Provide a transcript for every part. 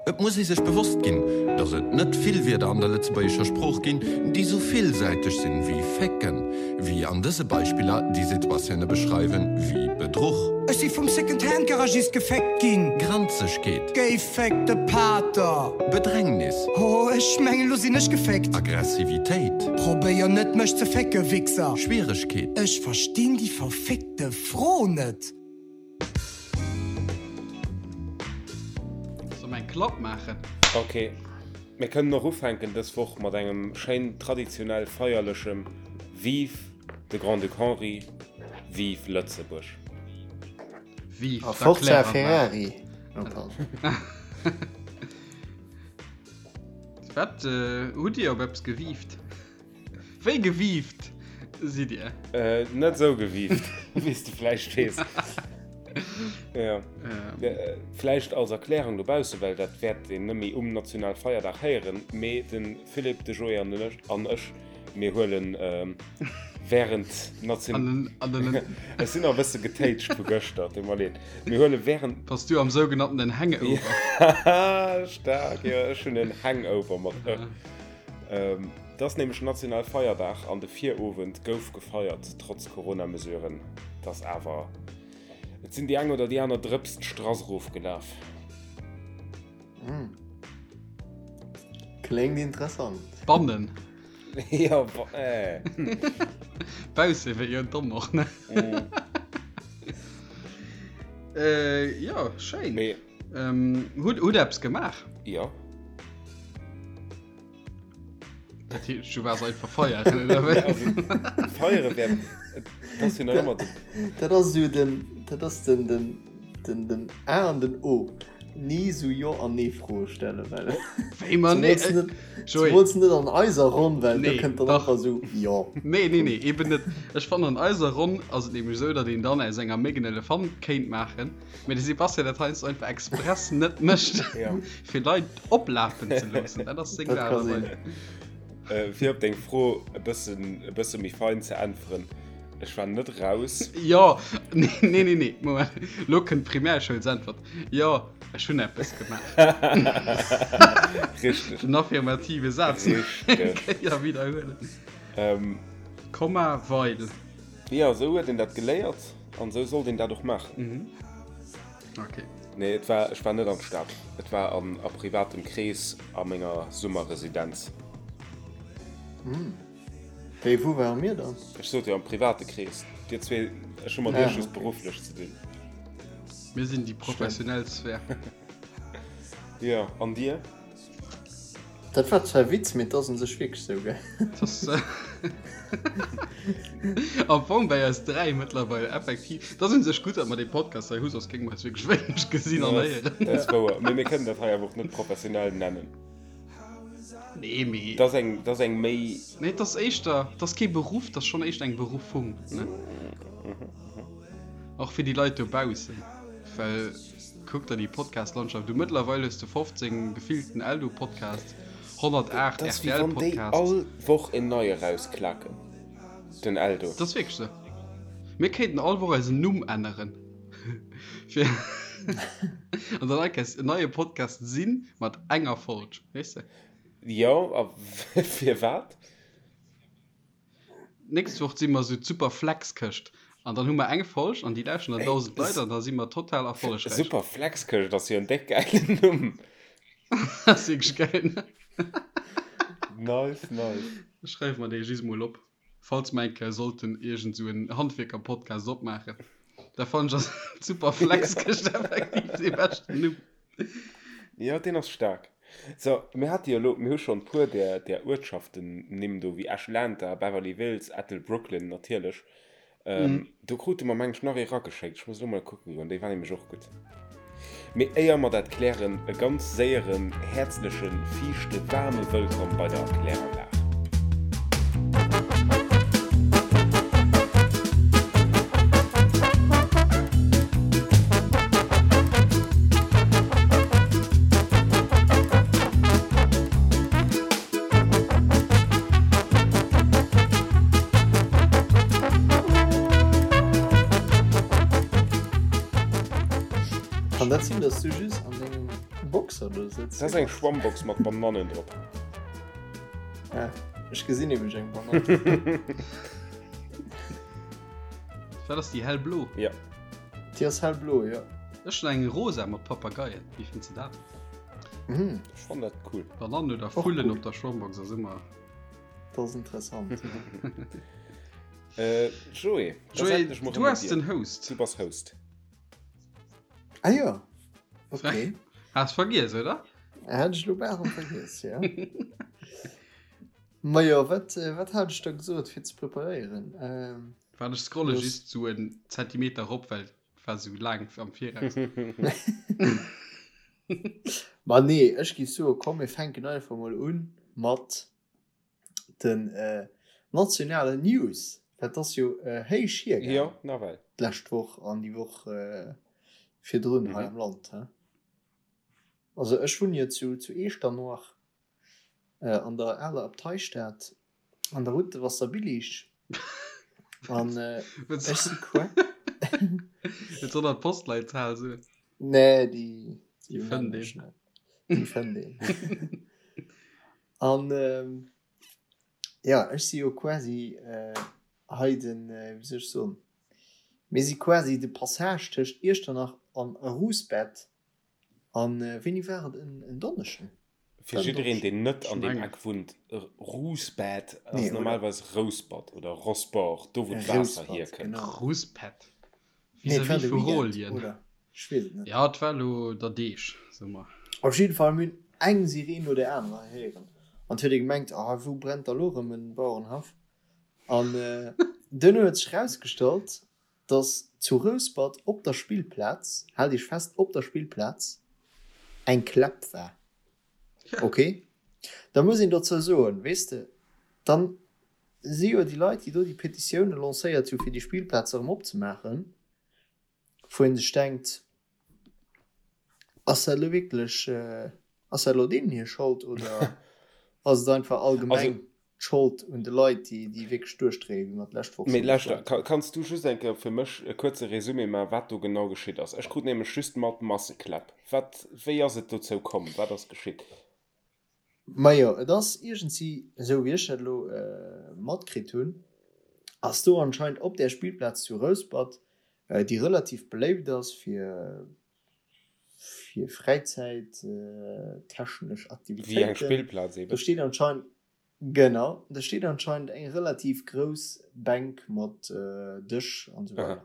Et muss ee sech bewosst ginn, datt et net vill Wierder an der lëtzebuergescher Sprooch ginn, déi sou villsäiteg sinn wéi fécken, wéi an dëse Beispiller, déi Situatioune beschreiwen wéi Bedruch. Ech si vum Second-Hand-Garagist geféckt ginn. Granzegkeet. Géiféckte Pater. Bedrängnis. Oh, ech mengen, lo sinn ech geféckt. Aggressivitéit. Probéier net, mech ze fécke, Wichser. Schwieregkeet. Ech verstinn déi verfickte Fro net. Soll mer eng Klapp maachen? Ok, mir kënnen och ufänken dës Woch mat engem schéin traditionell feierlechem Vive de Grand-Duc Henri, Vive Lëtzebuerg! Vive A Forza d'Erkläranlag! Ferrari! Oh, pardon. Wat hutt Dir op eppes gewiift? Wéi gewiift sidd Dir? Äh, net sou gewiift, wéi s de vläicht weess. Ja. Äh, vläicht als Erklärung dobausse, well dat wäert een nëmme um Nationalfeierdag héieren, mee de Philippe, de Joé an den ech, an ech, mir huelen ähm, während Nation... An den, an den, Ech sinn nach e bësse getéitscht vu gëschter, tut mer leed. Mir huele während... Bass du am sougenannten Hangover? Staark, jo, ech hunn en Hangover mat ë. Ähm, Et ass nämlech national Feierdag an de Virowend gouf gefeiert, trotz Corona-Mesuren. Et ass awer, et sinn déi eng oder déi aner Drëps d'Strass erofgelaf. Kléngt interessant. Bannen. Jo, äh. Bausse wéi jo domm och, ne? Jo, schéin. Mee. Hutt hutt eppes gemaach? Jo. Dat heescht, du waars einfach feieren, oder wéi? Also, feiere wär, dat ass jo nach ëmmer den. Dat ass esou den, dat ass den, den, den, den A an den O. Ni esou Jo an Nee-Froe stellen, well. Wéi mer nee, Zemools net, Joé. zemools net an eiser Ronn, well do Nee, kënnt dann dach. einfach esou Jo. Nee, nee, nee, eben net. Ech fannen, an eiser Ronn ass et nämlech esou, datt een dann aus enger Méck en Elefant kéint maachen. Mee de Sebastian dat heiansdo einfach express net mécht, fir Leit oplafen ze loossen. Dat ass seng Dat ka Aart a sinn. Weis. Äh, fir op deng Fro e bëssen, e bësse méi fein ze äntweren, Ech war net raus. Jo, nee, nee, nee, nee, Moment. Lo kënnt d'Primärschoulsäntwert. Jo, ech hunn eppes gemaach. Richteg. Den affirmative Saz. Richteg. Kéier widderhuelen. Ähm, Komma, weil. jo, esou huet een dat geléiert. An sou sollt een dat och maachen. Mhm. Okay. Nee, et war, ech war net an d'Stad. Et war an a privatem Krees a menger Summerresidenz. Hm. Wéi, wou ware mir dann? Ech sot jo am private Krees. Dir zwee, ech hu mat iech just berufflech ze dinn. Mir sinn déi professionell Sphär. Jo, an dir? Dat war zwar e Witz, mee et ass un sech wierklech sou, gell? Am Fong bei eis 3 mëttlerweil effektiv. Et ass un sech gutt, datt mer dee Podcast hei hu, soss géinge mer eis wierklech wéineg gesinn an héieren. Dat ass wouer. Mee mir kënnen dat hei awer och net professionell nennen. Nee, mee. Dat ass eng, dat ass eng méi. Nee, et ass éischter, et ass kee Beruff, et ass schonn éischter eng Beruffung, ne? Och fir déi Leit dobaussen, well. Kuck der déi Podcast-Landschaft u. Mëttlerweil hues de 15 gefillten Eldo-Podcasts, 108 Dat ass wéi wann déi RTL-Podcasts. all Woch en neie rausklaken, den Eldo. Dat ass wierklech esou. Mir kéinten all Woch eisen Numm änneren, fir an dann enk en neie Podcast sinn mat enger Folg, weess de? Jo, a firwat? D'nächst Woch si mer esou d'Super Flex-Këscht an dann hu mer eng Folg an déi lauschteren dann 1.000 Leit an da si mer total erfollegräich. Super Flex-Këscht ass jo en déck gäilen Numm. Ass wierklech gäil, ne? Nice, nice. Ech schreiwe mer dee just mol op, falls mer eng Kéier sollten iergend esou en Handwierker-Podcast opmaachen. Da fannen ech ass d'Super Flex-Këscht effektiv dee beschten Numm. Jo, deen ass staark. So, mir hate jo elo, mir hu schonn e puer där, där Uertschaften-Nimm do, wéi Atlanta, Beverly Hills, Ettelbrooklyn natierlech. Ähm, do krute mer, meng ech, nach ee rageschéckt. Ech muss elo mol kucke goen, déi war nämlech och gutt. Mee éier mer dat klären, e ganz séieren, häerzlechen, fiichte, waarme Wëllkomm bei der Kläranlag. Kann dat sinn, dass du just an dengem. Box der do sëtzt. Dat ass eng Schwammbox mat Banannen drop. Ah, ech gesinn nämlech eng Banann. Wat ass déi hellblo? Ja. Déi ass hellblo, jo. Ech hunn eng rosa mat Papageien. Wéi fënns de dat? Mhm. Ech fannen dat cool. Banannen oder Och Vullen cool. op der Schwammbox ass ëmmer. Dat ass interessant. Äh, Joé, da Joé, setzen ech mol du erëm mat ass dir. den Host. Du bass Host. Ah jo, okay. Has vergiess, oder? Hat ech lo bal erëm vergiess, ja. Majo, wat, wat hat ech da gesot fir ze preparéieren? Ähm, Waart ech scrolle Los. just sou en Zentimeter rop, well et war sou laang am Viraus. Ma nee, ech géif soe komm mir fänken einfach mol un mat den äh, nationalen News. Dat ass jo äh, héich hiergaang Jo, nawell. d'lescht Woch an déi Woch äh, virdrun hei Mhm. am Land. He? Also ech wunn jo zu, zu Eechternoach äh, an der aler Abteistad an der Route de Wasserbillig. An äh, ech si qua. Et soll der d'Postleitzahl soen. Nee, déi, déi Déi fënnt nennen ech een. net. Déi fënnt een. An ähm, ja, ech si jo quasi äh, hei den, äh, wéi soll ech soen, mir si quasi de Passage tëscht Iechternach an Rouspert. An äh, wéini war et? En, en Donneschden? Fir jiddereen, deen net an deem Mengen. Eck wunnt, Rouspert ass Nee, oder? normalerweis Rouspert oder Rosport, do wou d'Waasser Rouspert, hierkënnt. genau. Rouspert. Nee, et war Vis-à-vis de vu Weekend, Rolien. oder? Ech weess et net. Ja, et war elo der Deeg, soe mer. Op jidde Fall, mir hunn eng Sireen no där anerer héieren. An et huet ee gemengt, ah, wou brennt da lo erëm en Bauerenhaff? An duerno huet sech erausgestallt, dass zu Rouspert op der Spillplaz, haalt Iech fest, op der Spillplaz eng Kläpp war. Ok, da muss een dozou soen, weess de, dann si jo déi Leit, déi do déi Petitioune lancéiert hu fir déi Spillplaz erëm opzemaachen, wou ee sech denkt, ass dat elo wierklech, ass dat elo deenen hir Schold oder ass et einfach allgemeng d'Schold un de Leit, déi, déi wierklech duerchdréien, wéi mer d'lescht Woch Mee schonn lauschter, geschwat hunn. kanns du just eng Kéier fir mech e kuerze Résumé maachen, wat do genau geschitt ass? Ech krut nämlech just mat Massekläpp. Wat, wéi ass et dozou komm? Wat ass geschitt? Majo, et ass iergendsi, esou wéi ech dat elo matkritt hunn, ass do anscheinend op där Spillplaz zu Rouspert, déi relativ beléift ass fir fir fräizäittechnesch Wéi eng Aktivitéiten, Spillplaz do eben. steet anscheinend, genau, do steet anscheinend eng relativ grouss Bänk mat Dësch an esou Aha. weider.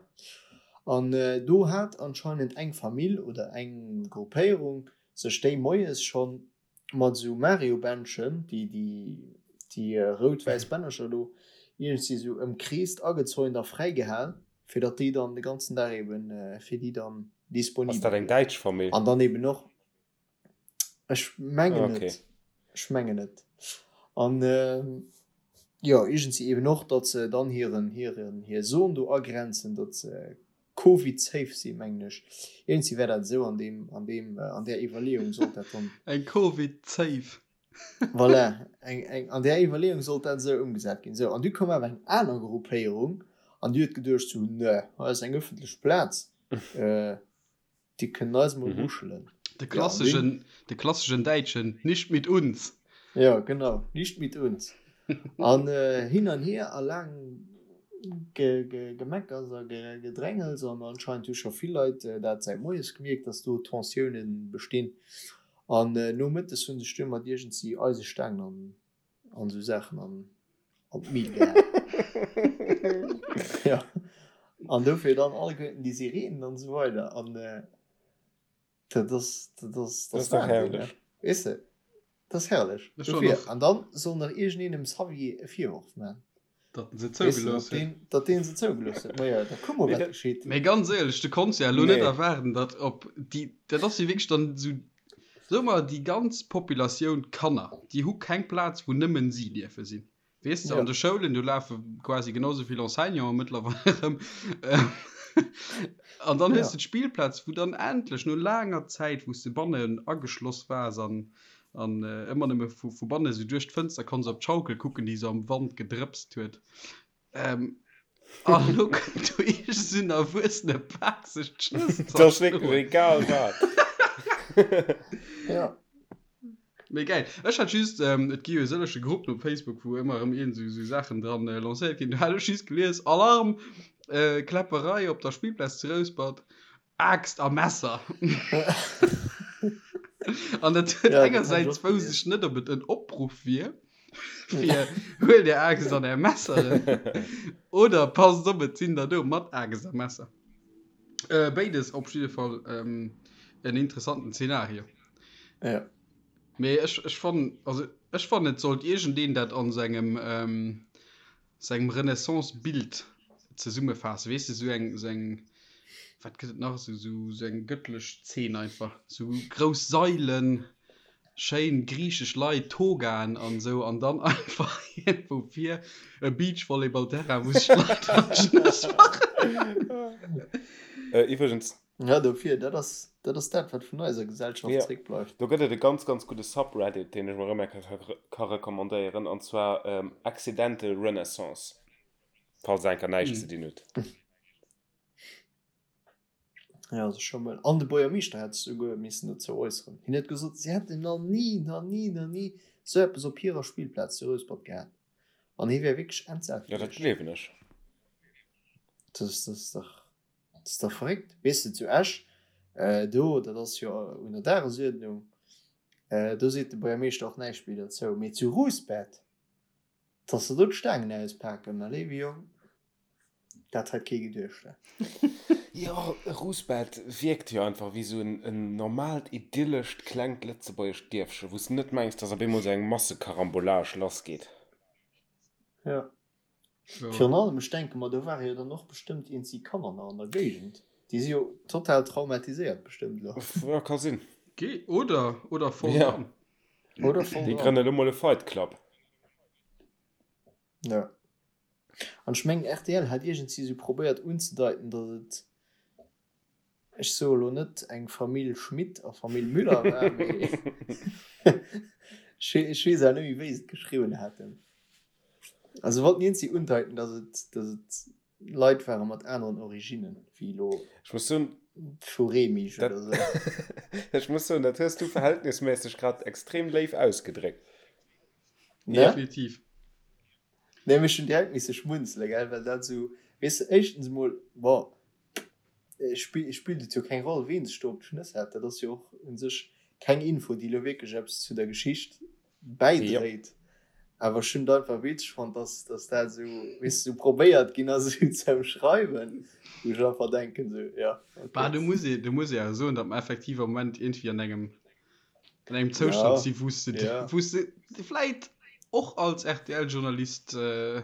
An do hat anscheinend eng Famill oder eng Gruppéierung sech déi moies schonn mat esou Mario-Bändchen, déi déi rout-wäiss Bännercher do, iergendwéi esou ëmkreest, agezäunt a fräigehal, fir datt déi dann de ganzen Dag eben fir déi dann Ass disponibel dat eng wier. däitsch Famill? An dann eben och, ech mengen Okay. et, ech mengen et. An jo, iergendwéi eben och, datt se dann hiren, hiren, hir Zon do agrenzen, datt se Covid safe sinn, mengen ech. Iergendwéi war dat esou an deem, an deem, an där Iwwerleeung sollt dat dann. Eng Covid safe. Voilà, eng, eng, an där Iwwerleeung sollt dat esou ëmgesat ginn. Sou, an du koum awer eng aner Gruppéierung an déi huet geduecht sou, Nö, hei ass eng ëffentlech Plaz, déi kënnen eis mol muschelen. De klasseschen, de klasseschen Däitschen, nicht mit uns! Jo, genau, nicht mit uns. An hin an hier a laang Gemeckers a Gedrängels an anscheinend hu scho vill Leit dat säit moies gemierkt, dass do Tensioune bestinn. An nomëttes hu sech duer mat iergendsi Eisestaangen an an esou Saachen an an d'Mil gehaen. Jo, an dofir dann alleguerten déi Sirenen an esou weider. An dat ass, dat ass, Dat ass dach herrlech. Weess de, dat ass herrlech. Ech war Dofir, nach- an dann soll nach iergendeen dem Xavier e Virworf man. Datt en se Weess de, zougelooss datt huet. deen, datt deen se zougelooss huet. Majo, da kuck mol, Nee, wat dat- geschitt. Mee ganz éierlech, du konns ja elo net Nee. erwaarden, datt op déi, dat ass jo wierklech dann esou, soe mer déi ganz Populatioun Kanner, déi hu keng Plaz, wou nëmmen si dierfe sinn. Weess de, Ja. an de Schoulen, do lafe quasi genau esou vill Enseignanten mëttlerweil erëm. An dann hues Ja. de d'Spillplaz, wou dann endlech no laanger Zäit, wou s de bannen ageschloss waars an, an ëmmer nëmme vu, vu banne sou duerch d'Fënster konns op d'Schaukel kucken, déi sou am Wand gedrëpst huet. Ähm, an elo kënnt do iergend esou en erwuessene Pak sech d'Schnëss Dat ass wierklech zerschloen. egal wat. Ja. Mee geil. Ech hat just, ähm, et gi jo sëllege Gruppen op Facebook, wou ëmmer erëm iergend esou, esou Saachen dran äh, lancéiert ginn. Do hat ech just gelies, Alarm, äh, Kläpperei op der Spillplaz zu Rouspert, Aaxt a Messer. An dat huet Ja, dat hat ech engersäits och wousst gelies. ech net, ob et en Opruff wier, fir huelt är Aaxt an är Messeren oder passt op, et sinn der do mat Aaxt a Messer. Äh, béides op jidde Fall ähm, en interessanten Zenario. Ja. Mee ech, ech fannen, also ech fannen et sollt iergendeen dat an sengem, ähm, sengem Renaissance-Bild zesummefaassen. Weess de, sou eng, sou eng, wat gëtt et nach, sou, sou, sou eng gëttlech Zeen einfach. Sou grouss Sailen, schéin griichesch Leit, Togaen an sou, an dann einfach iergendwou vir e Beachvolleyball-Terrain, wou sech d'Leit an d'Schnëss maachen. Äh, iwwregens, Ja, dofir, dat ass, dat ass dat, wat vun eiser Gesellschaft Ja. zréckbleift. Do gëtt et e ganz, ganz gudde Subreddit, deen ech mol erëm eng Kéier ka recommandéieren, an zwar Accidental Renaissance, falls der eng Kéier näischt ze dinn hutt. Ja, also scho mol. An de Buergermeeschter hätt sech souguer missen dozou äusseren. Hien huet gesot, si hätten nach ni, nach ni, nach ni esou eppes op hirer Spillplaz zu Rouspert gehat. An hie wär wierklech entsat Ja, dat gewiescht. gleewen ech. Dat ass, dat ass dach. Dat ass dach verréckt. Weess de, zu Esch, do, dat ass jo un der Dagesuerdnung, do seet de Buergermeeschter och näischt méi derzou. Mee zu Rouspert, dass se do d'Staangen auspaken, mä léiwe Jong, dat hätt kee geduecht. Jo, Rouspert wierkt jo einfach wéi esou en normaalt, idyllescht, klengt lëtzebuergescht Dierfche, wou s de net mengs, dass op eemol esou eng Massekarambolage lassgeet. Jo. Virun allem, ech denke mer, do ware jo dann och bestëmmt eenzi Kanner nach an der Géigend. Déi si jo total traumatiséiert bestëmmt elo. Ja, ka sinn. Ge oder, oder voll Ja. dran. Oder voll Déi dran. grënne elo mol e Fight Club. Ja. An ech mengen, rtl hat iergendsi sou probéiert unzedeiten, datt et, ech soe lo net eng Famill Schmit a Famill Müller war, mee ech weess awer net méi, wéi se et geschriwwen haten. Also wollten iergendsi undeiten, datt et, datt et Leit ware mat aneren Originnen, wéi elo Ech muss soen, vu Remich dat, oder sou. ech muss soen, dat hues du verhältnismässeg grad extrem léif ausgedréckt. Ne? Definitiv. Nee, mee ech hunn direkt misse schmunzelen, gell, well dat esou, weess de, éischtens emol, bon, spillt et jo keng Roll, ween sech do op d'Schnëss hat, dat ass jo och u sech keng Info, déi elo wierklech eppes zu der Geschicht bäidréit, awer ech hunn et einfach witzeg fonnt, dass, dass dat esou, weess de, esou probéiert ginn ass, esou ze ëmschreiwen, wou ech einfach denken, esou, ja, Bah, okay. do muss ee, do muss ee awer soen, datt mer effektiv am Moment iergendwéi an engem an engem Zoustand Ja, si wou s de ja. wou s de vläit och als RTL-Journalist äh,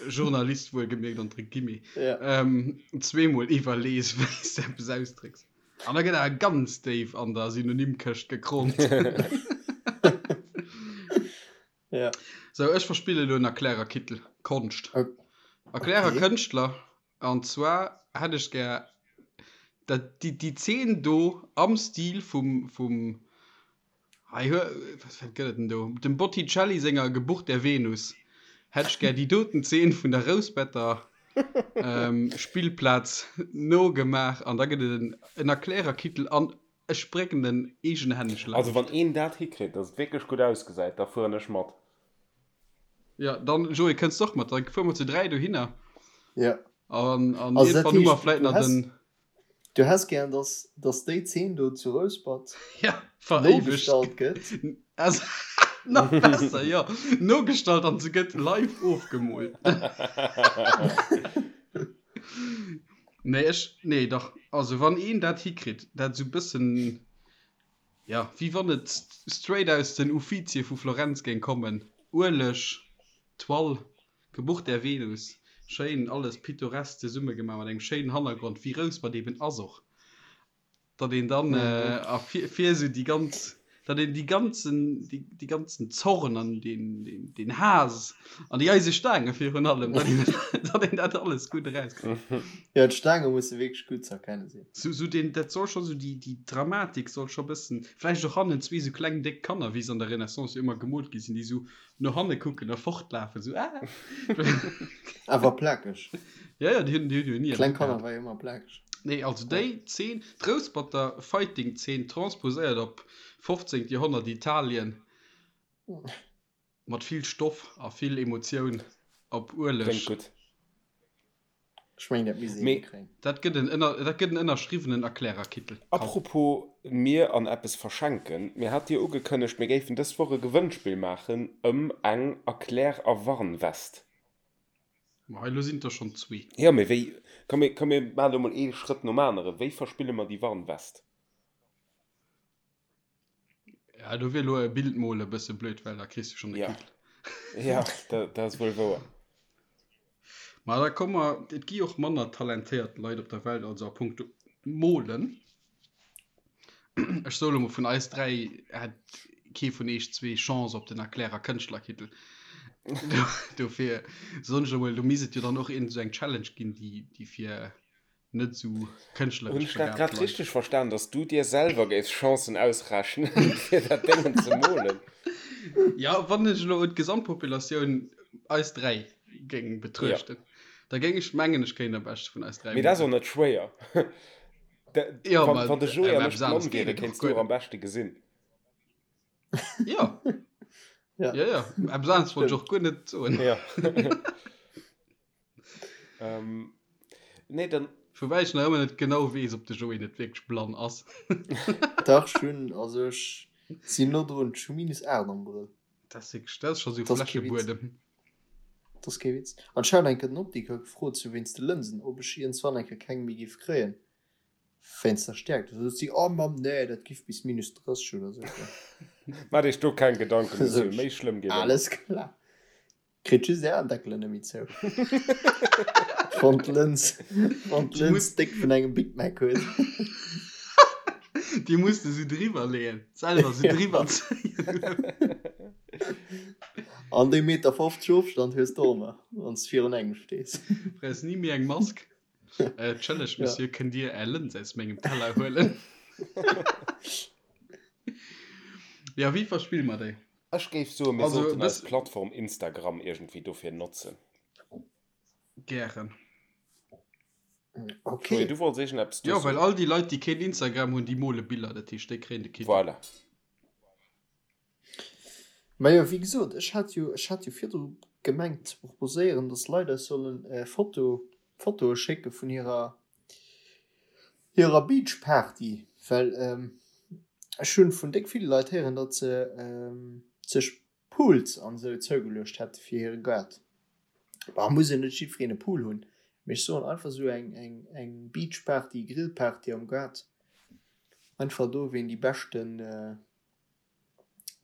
Journalist wuelgemierkt entre guillemets Ja. ähm, zweemol iwwerlees wéi s de eppes ausdrécks. An da gëtt awer ganz déif an der Synonymkëscht gekromt. Ja. Sou, ech verspille lo en Erklärerkittel. Konscht. Ok. Erklärer Kënschtler. An zwar hätt ech gär dat, déi, déi Zeen do am Stil vum, vum, hei hue, wat, wat gëtt et denn do, dem Botticelli senger Geburt der Venus, hätt ech gär déi doten Zeen vun der Rouspetter Spillplaz nogemaach an da gëtt et en, en Erklärerkittel an ech brécken en eegenhänneg Also wann laanscht. een dat hikritt, dass et wierklech gutt ausgesäit, da fueren ech mat. Ja, dann Joé kënns de och mat, da fuere mer zu 3 dohinner. Ja. An, an Also dat iergendwann hu mer heescht, vläit du nach häss, den. du häss gären, dass, dass déi Zeen do zu Rouspert Ja, veréiwegt. nogestallt gëtt. Also, nach besser, jo. Nogestallt an se gëtt live ofgemoolt. Nee, ech, nee, dach. Also wann een dat hikritt, dat esou bëssen. Jo, wéi wann et straight aus den Uffizie vu Florenz géing kommen. Ueleg, Toile, Geburt der Venus, schéin alles pittoresk zesummegemaach mat engem schéinen Hannergrond, wéi Rouspert eben ass och, datt een dann a fir fir esou déi ganz, datt een déi ganzen, déi ganzen Zorn an deen, deen Haass an déi eise Staange virun allem, datt een, datt een dat alles gutt erauskritt. Jo, d'Staange musse wierklech gutt ze erkenne sinn. Sou, sou deen, dat soll scho sou déi, déi Dramatik soll scho bëssen, vläicht och hannen zwee sou kleng déck Kanner, wéi se an der Renaissance jo ëmmer gemoolt gi sinn, déi sou no hanne kucken a fortlafen, sou ah! Awer plakeg. Ja, ja, déi hunn, déi hunn jo ni Kleng Kanner war jo ëmmer plakeg. Nee, also déi Zeen, d'Rousperter Fighting-Zeen transposéiert op 15. Joerhonnert Italien, mat vill Stoff a vill Emotioun op Ueleg. Kléngt gutt. Ech mengen, dat misst een Mee. hikréien. Dat gëtt en ënner, dat gëtt en ënnerschriwwenen Erklärerkittel. Komm. Apropos mir an eppes verschenken, mir hate jo ugekënnegt, mir géifen dës Woch e Gewënnspill maachen ëm eng Erklär a Warnwest. Ma elo sinn et der schonn zwee. Jo, mee wéi, komm mir, komm mir maachen elo mol ee Schrëtt nom aneren, wéi verspille mer déi Warnwest? Ja, do wier elo e Bild mole e bësse blöd, well da kriss du schonn de Ja. Kittel. Ja, dat ass wuel wouer. Ma da komm mer, et gi och manner talentéiert Leit op der Welt als a punkto Molen. Ech soe lo mol, vun eis 3 hätt kee vun eech zwee Chance op den Erklärer Kënschtlerkittel. Dofir soen ech emol, do misst et jo dann och iergend esou eng Challenge ginn, déi, déi fir net esou Hunn kënschtleresch ech dat begaabt grad Leit. richteg verstan, dass du dir selwer géifs Chancen ausrechnen, fir dat Déngen ze molen? Ja, wann ech elo d'Gesamtpopulatioun, eis 3, géing Ja. betruechten, da géing ech mengen, ech kéint am beschte vun eis 3 Mee dat ass och molen. net schwéier. Da, Ja, wann, ma wann de Joé awer an ech eppes blann aneres geet wieren, et och kéints du guer och am net. beschte gesinn. Ja. Ja. Ja, ja. Eppes aneres wollt ech Stimmt. och guer net soen. Ja. Ähm, nee, dann. Woubäi ech nach ëmmer net genau weess, ob de Joé net wierklech blann ass. Dach, ech hunn, also ech sinn no drun, ech hu minus 8 am Brëll. Dat ass wierklech, dat ass scho sou Dat ass kee Witz. Fläschebuedem. Dat ass kee Witz. An ech hat eng Kéier den Optiker gefrot, sou wéinst de Lënsen, ob ech iergendswann eng Kéier keng méi géif kréien, wéinst der Stäerkt. Da sot si, oh Mamm, nee, dat giff bis minus 30 oder sou goen. Maach dech do keng Gedanken, Sot Monsieur, ech, méi schlëmm geet ëmmer. Alles klar. Kritt just är Aendeckelen net méi zou. Wann d'Lëns, wann d'Lëns déck vun engem Big Mac huet. Déi muss de sou driwwer leeën, selwer sou driwwer zéien. An dee Meter 50 Ofstand hues de och nach, wann s de virun engem stees. Brauchs ni méi eng Mask. Entschëllegt, Monsieur, kënnt Dir Är Lëns aus mengem Teller huelen? Jo, wéi verspille mer déi? Ech géif soen, mir Also, sollten eis dës. Plattform Instagram iergendwéi dofir notzen. Gären. Joé, Okay. du wollts iergendeppes do Jo, well soen. all déi Leit, déi keen Instagram hunn, déi mole Biller, dat heescht, déi kréien de Kittel. Voilà. Majo, wéi gesot, ech hat jo, ech hat jo virdru gemengt ze proposéieren, dass Leit eis sollen Foto, Fotoe schécke vun hirer, hirer Beachparty, well ech hunn vun déck ville Leit héieren, datt se sech Pools an esou zougeluecht hätte fir hire Gaart. Bon, muss jo net jiddwereen e Pool hunn, mee ech soen einfach esou eng, eng, eng Beachparty, Grillparty am Gaart, einfach do ween déi beschten,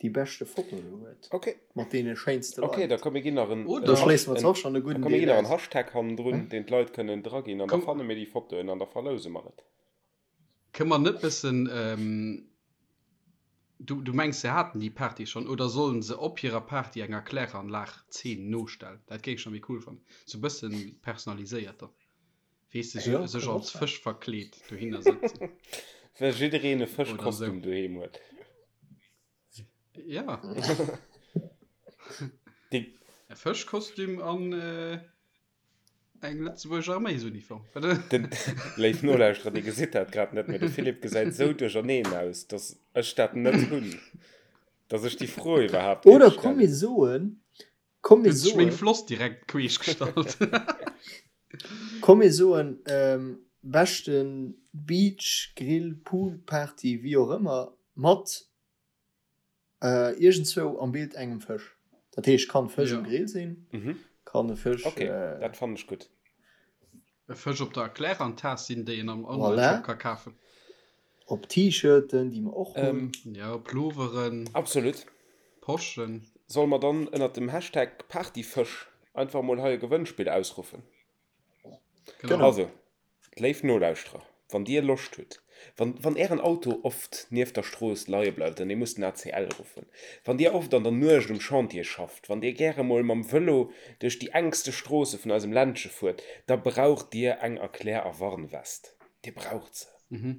déi beschte Foto do huet, Okay. mat deene schéinste Okay, da Leit. komm mir ginn nach en, Oder Da en schléisse mer en, zwar och schonn e da gudden komm mir Deel ginn nach en aus. Hashtag hannendrun, deen d'Leit kënnen draginn an da Komm, fanne mir déi Fotoen an da verlouse mer et. kënne mer net bëssen, du, du mengs se haten déi Party schonn, oder sollen se op hirer Party eng Erkläranlag-Zeen nostellen? Dat géing ech nach méi cool fannen, sou bëssen personaliséiert dann. Weess de, Jo, sech kann och als sein. Fësch verkleet dohinner sëtzen. Well jiddereen e Oder sou. Fëschkostüm doheem huet. Ja. Déi. E Fëschkostüm an eng lëtzebuergesch Arméisuniform. Den, léif Nolauschterer, dir gesitt dat grad net, mee de Philippe gesäit sou duercherneen aus, dass ech dat net hunn, dass ech déi Fro iwwerhaapt géif Oder komm mir stellen. soen, Komm mir Huet sech meng soen. Floss direkt queesch gestallt. Komm mir soen, beschten Beach, Grill, Pool Party, wéi och ëmmer, mat iergendzwou am Bild engem Fësch. Dat heescht, kann Fësch um Ja. Grill sinn, kann e Fësch. Ok, dat fannen ech gutt. E Fësch op der Erklärantas sinn, déi een am Voilà. Online-Shop ka kafen. Op T-Shirten, déi mer och hunn. Ja, Ploveren. Absolut. Poschen. Solle mer dann ënnert dem Hashtag Partyfësch einfach mol hei e Gewënnspill ausruffen? Genau. Also, léif Nolauschterer, wann dir Loscht hutt, wann, wann ären Auto oft nieft der Strooss leie bleift an dir musst den ACL ruffen, wann dir oft an der Nuecht um Chantier schafft, wann dir gäre mol mam Vëlo duerch déi enkste Stroosse vun eisem Ländche fuert, da braucht dir eng Erklär a Warnwest. Dir braucht se.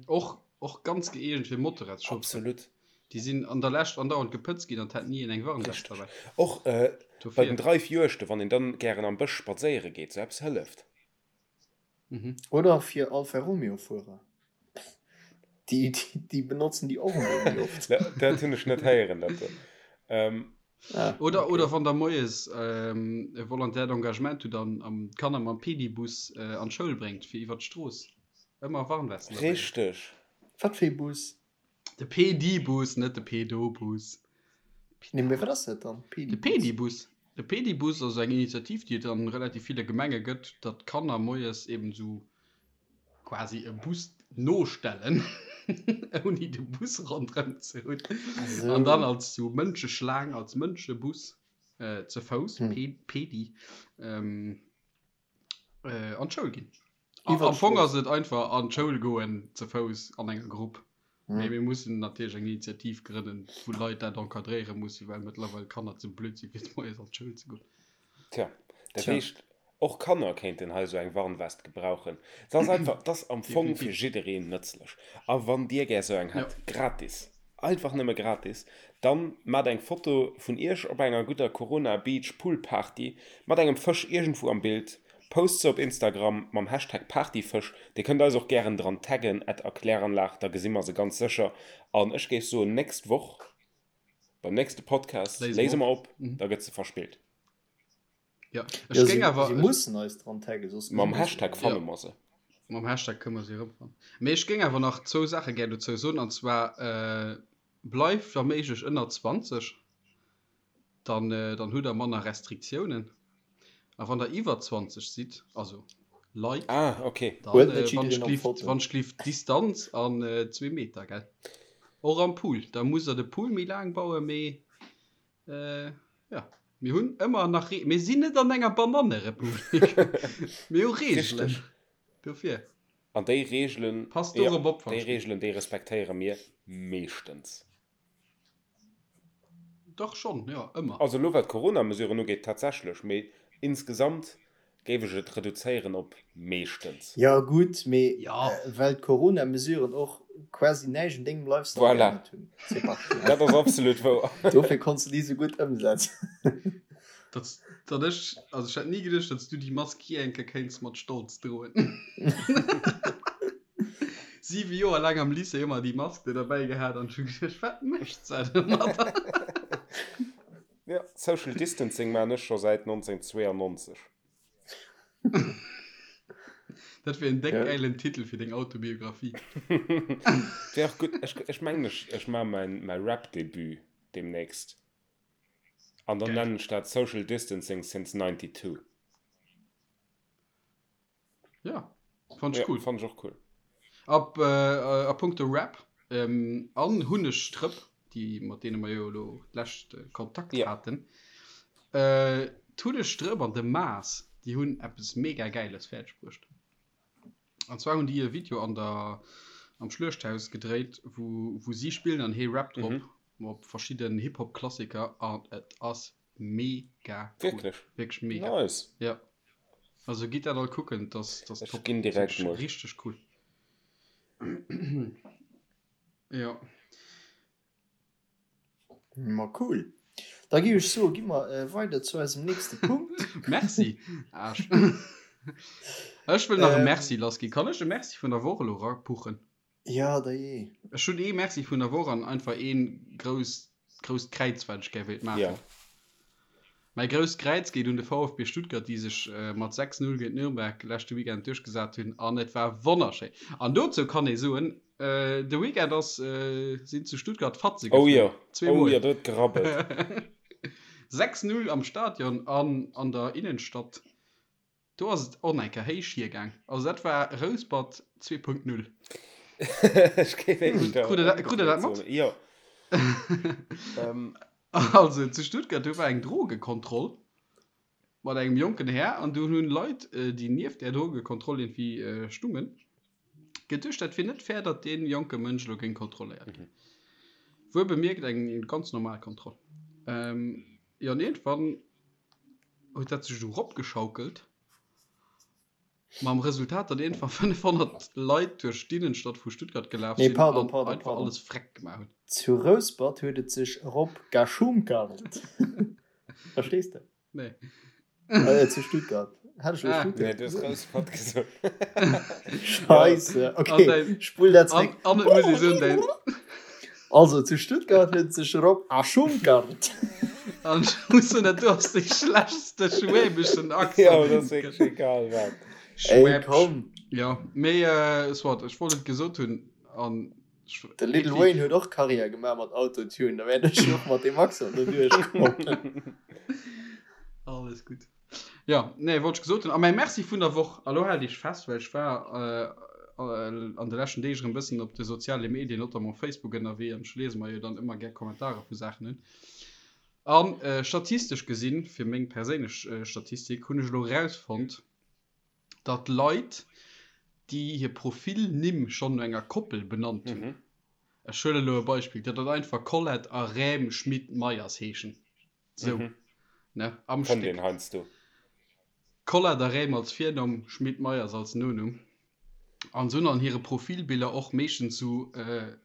Och, och ganz gëeegent fir Motorradschaufferen. Absolut. Déi sinn an der Lescht andauernd gepëtzt ginn an 't hat ni een eng Warnwest Richteg. derbäi. Och bei Dofir. den Dreifjuegten, wann een dann gären am Bësch spadséiere geet, sou eppes hëlleft. Mhm. Oder fir Alfa Romeo Fuerer. Déi, déi, déi benotzen déi och emol méi oft. Dat hunn ech net héieren, dat do. Ähm. Ah, oder, okay. oder wann der moies ähm, e Volontaire d'engagement hutt an am d'Kanner mam Pedibus äh, an d'Schoul bréngt fir iwwer d'Strooss. Ëmmer Warnwesten dabei. Richteg. Wat fir ee Bus? De Pedibus, net de Pedobus. Nee, mee wat ass dat dann? De Pedibus. De Pedibus ass eng Initiativ, déi et an relativ ville Gemenge gëtt, datt d'Kanner moies eben esou quasi e Bus nostellen, ouni de Bus ronderëm ze hunn, an dann als sou Mënscheschlaang, als Mënschebus ze Fouss, Pedi, an d'Schoul ginn. Am Fong ass et einfach an d'Schoul goen ze Fouss an enger Grupp. Mee mir mussen natierlech eng Initiativ grënnen, wou Leit dat encadréiere mussen, well mëttlerweil Kanner ze blöd sinn, fir moies an d'Schoul ze goen. Tja, dat heescht, och Kanner kéinten hei esou eng Warnwest gebrauchen. Se ass einfach, 't ass am Fong fir jiddereen nëtzlech. A wann Dir gär esou eng hätt, gratis, einfach nëmme gratis, dann maacht eng Foto vun Iech op enger gudder Corona Beach Pool Party mat engem Fësch iergendwou am Bild, Post se op Instagram mam Hashtag Partyfësch. Dir kënnt eis och gären dran taggen, at Erkläranlag, da gesi mer se ganz sécher. An ech géif soen, nächst Woch beim nächste Podcast léise mer op, da gëtt se verspillt. Jo, ech géing awer. Si mussen eis dran taggen, soss Mam Hashtag fanne mer se. Mam Hashtag kënne mer se erëmfannen. Mee ech géing awer nach zwou Saache gär dozou soen, an zwar, Bleift wa méiglech ënner 20. dann dann hutt der manner Restriktiounen. A wann der iwwer 20 sidd, also Leit, ah, okay. dann äh, wann ech glift, wann ech glift Distanz an äh, zwee Meter, gell? Och am Pool, da muss der de Pool méi laang bauen, mee äh, ja, mir hunn ëmmer nach Re mir sinn net an enger Banannerepublik. Mir hu Reegelen. Dofir. An déi Reegelen, Passt dorop op, déi Reegelen, déi respektéiere mir meeschtens. Dach schonn, jo, ëmmer. Also elo wat d'Corona-Mesuren ugeet tatsächlech, mee insgesamt géif ech et reduzéieren op meeschtens. Jo gutt, mee well d'Corona-Mesuren och quasi näischt un dengem Lifestyle Voilà, geännert hunn, Sébastien. dat ass absolut wouer. Dofir konns de déi sou gutt ëmsetzen. Datt, datt ech, also ech hätt ni geduecht, datt s du déi Mask jee eng Kéier kéints mat Stolz droen. 7 Joer laang am Lycée ëmmer déi Mask do derbäi gehat an ech hu geduecht, wat mécht se domadder? Jo, Social Distancing maan ech scho säit 1992. Dat wier en déck gäilen Titel fir deng Autobiographie. Wär och gutt. Ech, ech mengen ech, ech maan mäin, mäi Rap-Debut demnächst an dann nennen ech dat Social Distancing since 92. Ja, fand ich ja, cool. Fand ich och cool. Ab, äh, a punkto Rap ähm, an Hunnegstrëpp, déi mat deene mer jo elo d'lescht äh, Kontakt ja. haten. Äh, d'Hunnegstrëpp an de Maas, déi hunn eppes mega Gäiles fäerdeg bruecht. An zwar hunn déi e Video an der am Schluechthaus gedréit, wou, wou si spillen an hee rappt drop mhm. op verschidden Hip-Hop-Klassiker an et ass Mega cool. Wierklech? Wierklech mega. Nice. Ja. Also gitt dat all kucken, das, das Ech ginn direkt mol. Richteg cool. Ja. Ma cool. Da gi ech soe gi mer äh, weider zu eisem nächste Punkt. Merci. Aarsch. Ech wëll nach e Merci lassginn. Kann ech e Merci vun der Woch elo rapuchen? Ja, da jee. Ech hunn ee Merci vun der Woch an einfach een grousst, grousst Kräiz, wat ech gär wéilt maachen. Ja. Mäi grousst Kräiz geet un de VfB Stuttgart, déi sech mat 6, 0 géint Nürnberg leschte Weekend duerchgesat hunn an et war wonnerschéin. An dozou kann ee soen, de Weekend ass, sinn zu Stuttgart Fatze Oh geflunn. jo, oh Zweemol. jo, do huet gerabbelt. 6, 0 am Stadion an an der Innenstadt. Do ass et och eng Kéier héich hiergaang. Also dat war Rouspert 2.0. Ech géif éischter Krut der krut der dat ëmgedréit mat? soen. Jo. Ähm. Also zu Stuttgart, do war eng Drogekontroll mat engem jonken Här an do hunn Leit, déi nieft där Drogekontroll iergendwéi stungen, geduecht, dat wier net fair, datt dee jonke Mënsch elo géing kontrolléiert ginn. Wuel bemierkt eng ganz normal Kontroll. Jo, an iergendwann huet dat sech esou eropgeschaukelt, mam Resultat, datt iergendwann 500 Leit duerch d'Innenstadt vu Stuttgart gelaf Nee, sinn pardon, an pardon, einfach pardon. alles freck gemaach hunn. Zu Rouspert huet et sech erop geschunkelt. Verstees de? Nee. Äh, zu Stuttgart. Hat ech elo Ah. Stuttgart Nee, du hues gesot? Rouspert gesot. Scheisse. An Okay, dein, spull dat an, zréck. an et muss ee soen, däin, Also, zu Stuttgart huet sech Rob Aschunkart. an ech muss soen, dat do ass dee schlechtste schwäbeschen Ja, Accent, dat deen ass et wierklech gëtt. egal wat. Ey, Schwäbsch. komm. Ja, mee äh, soit, ech wollt et gesot hunn an De Lil Wayne huet och Karriär gemaach mat Autotune, da wäert ech och mat deem Accent do duerchkommen. Alles gutt. Jo, nee, wollt ech gesot hunn. A mäi Merci vun der Woch, a lo haalt iech fest, well ech war an de leschten Deeg erëm bëssen op de soziale Medien, notamment Facebook ënnerwee, an ech liese mer jo dann ëmmer gär Kommentarer vu Saachen un. An statistesch gesinn, fir meng perséinlech Statistik, hunn ech elo erausfonnt, datt Leit, déi hir Profilnimm schonn no enger Koppel benannt hunn, ech huelen elo e Beispill, datt dat einfach Colette a Räm Schmit-Meyers heeschen, sou, ne, am Fënnt Stéck. een heiansdo. Colette a Räm als Virnumm, Schmit-Meyers als Nonumm. An se hunn an hire Profilbiller och meeschtens sou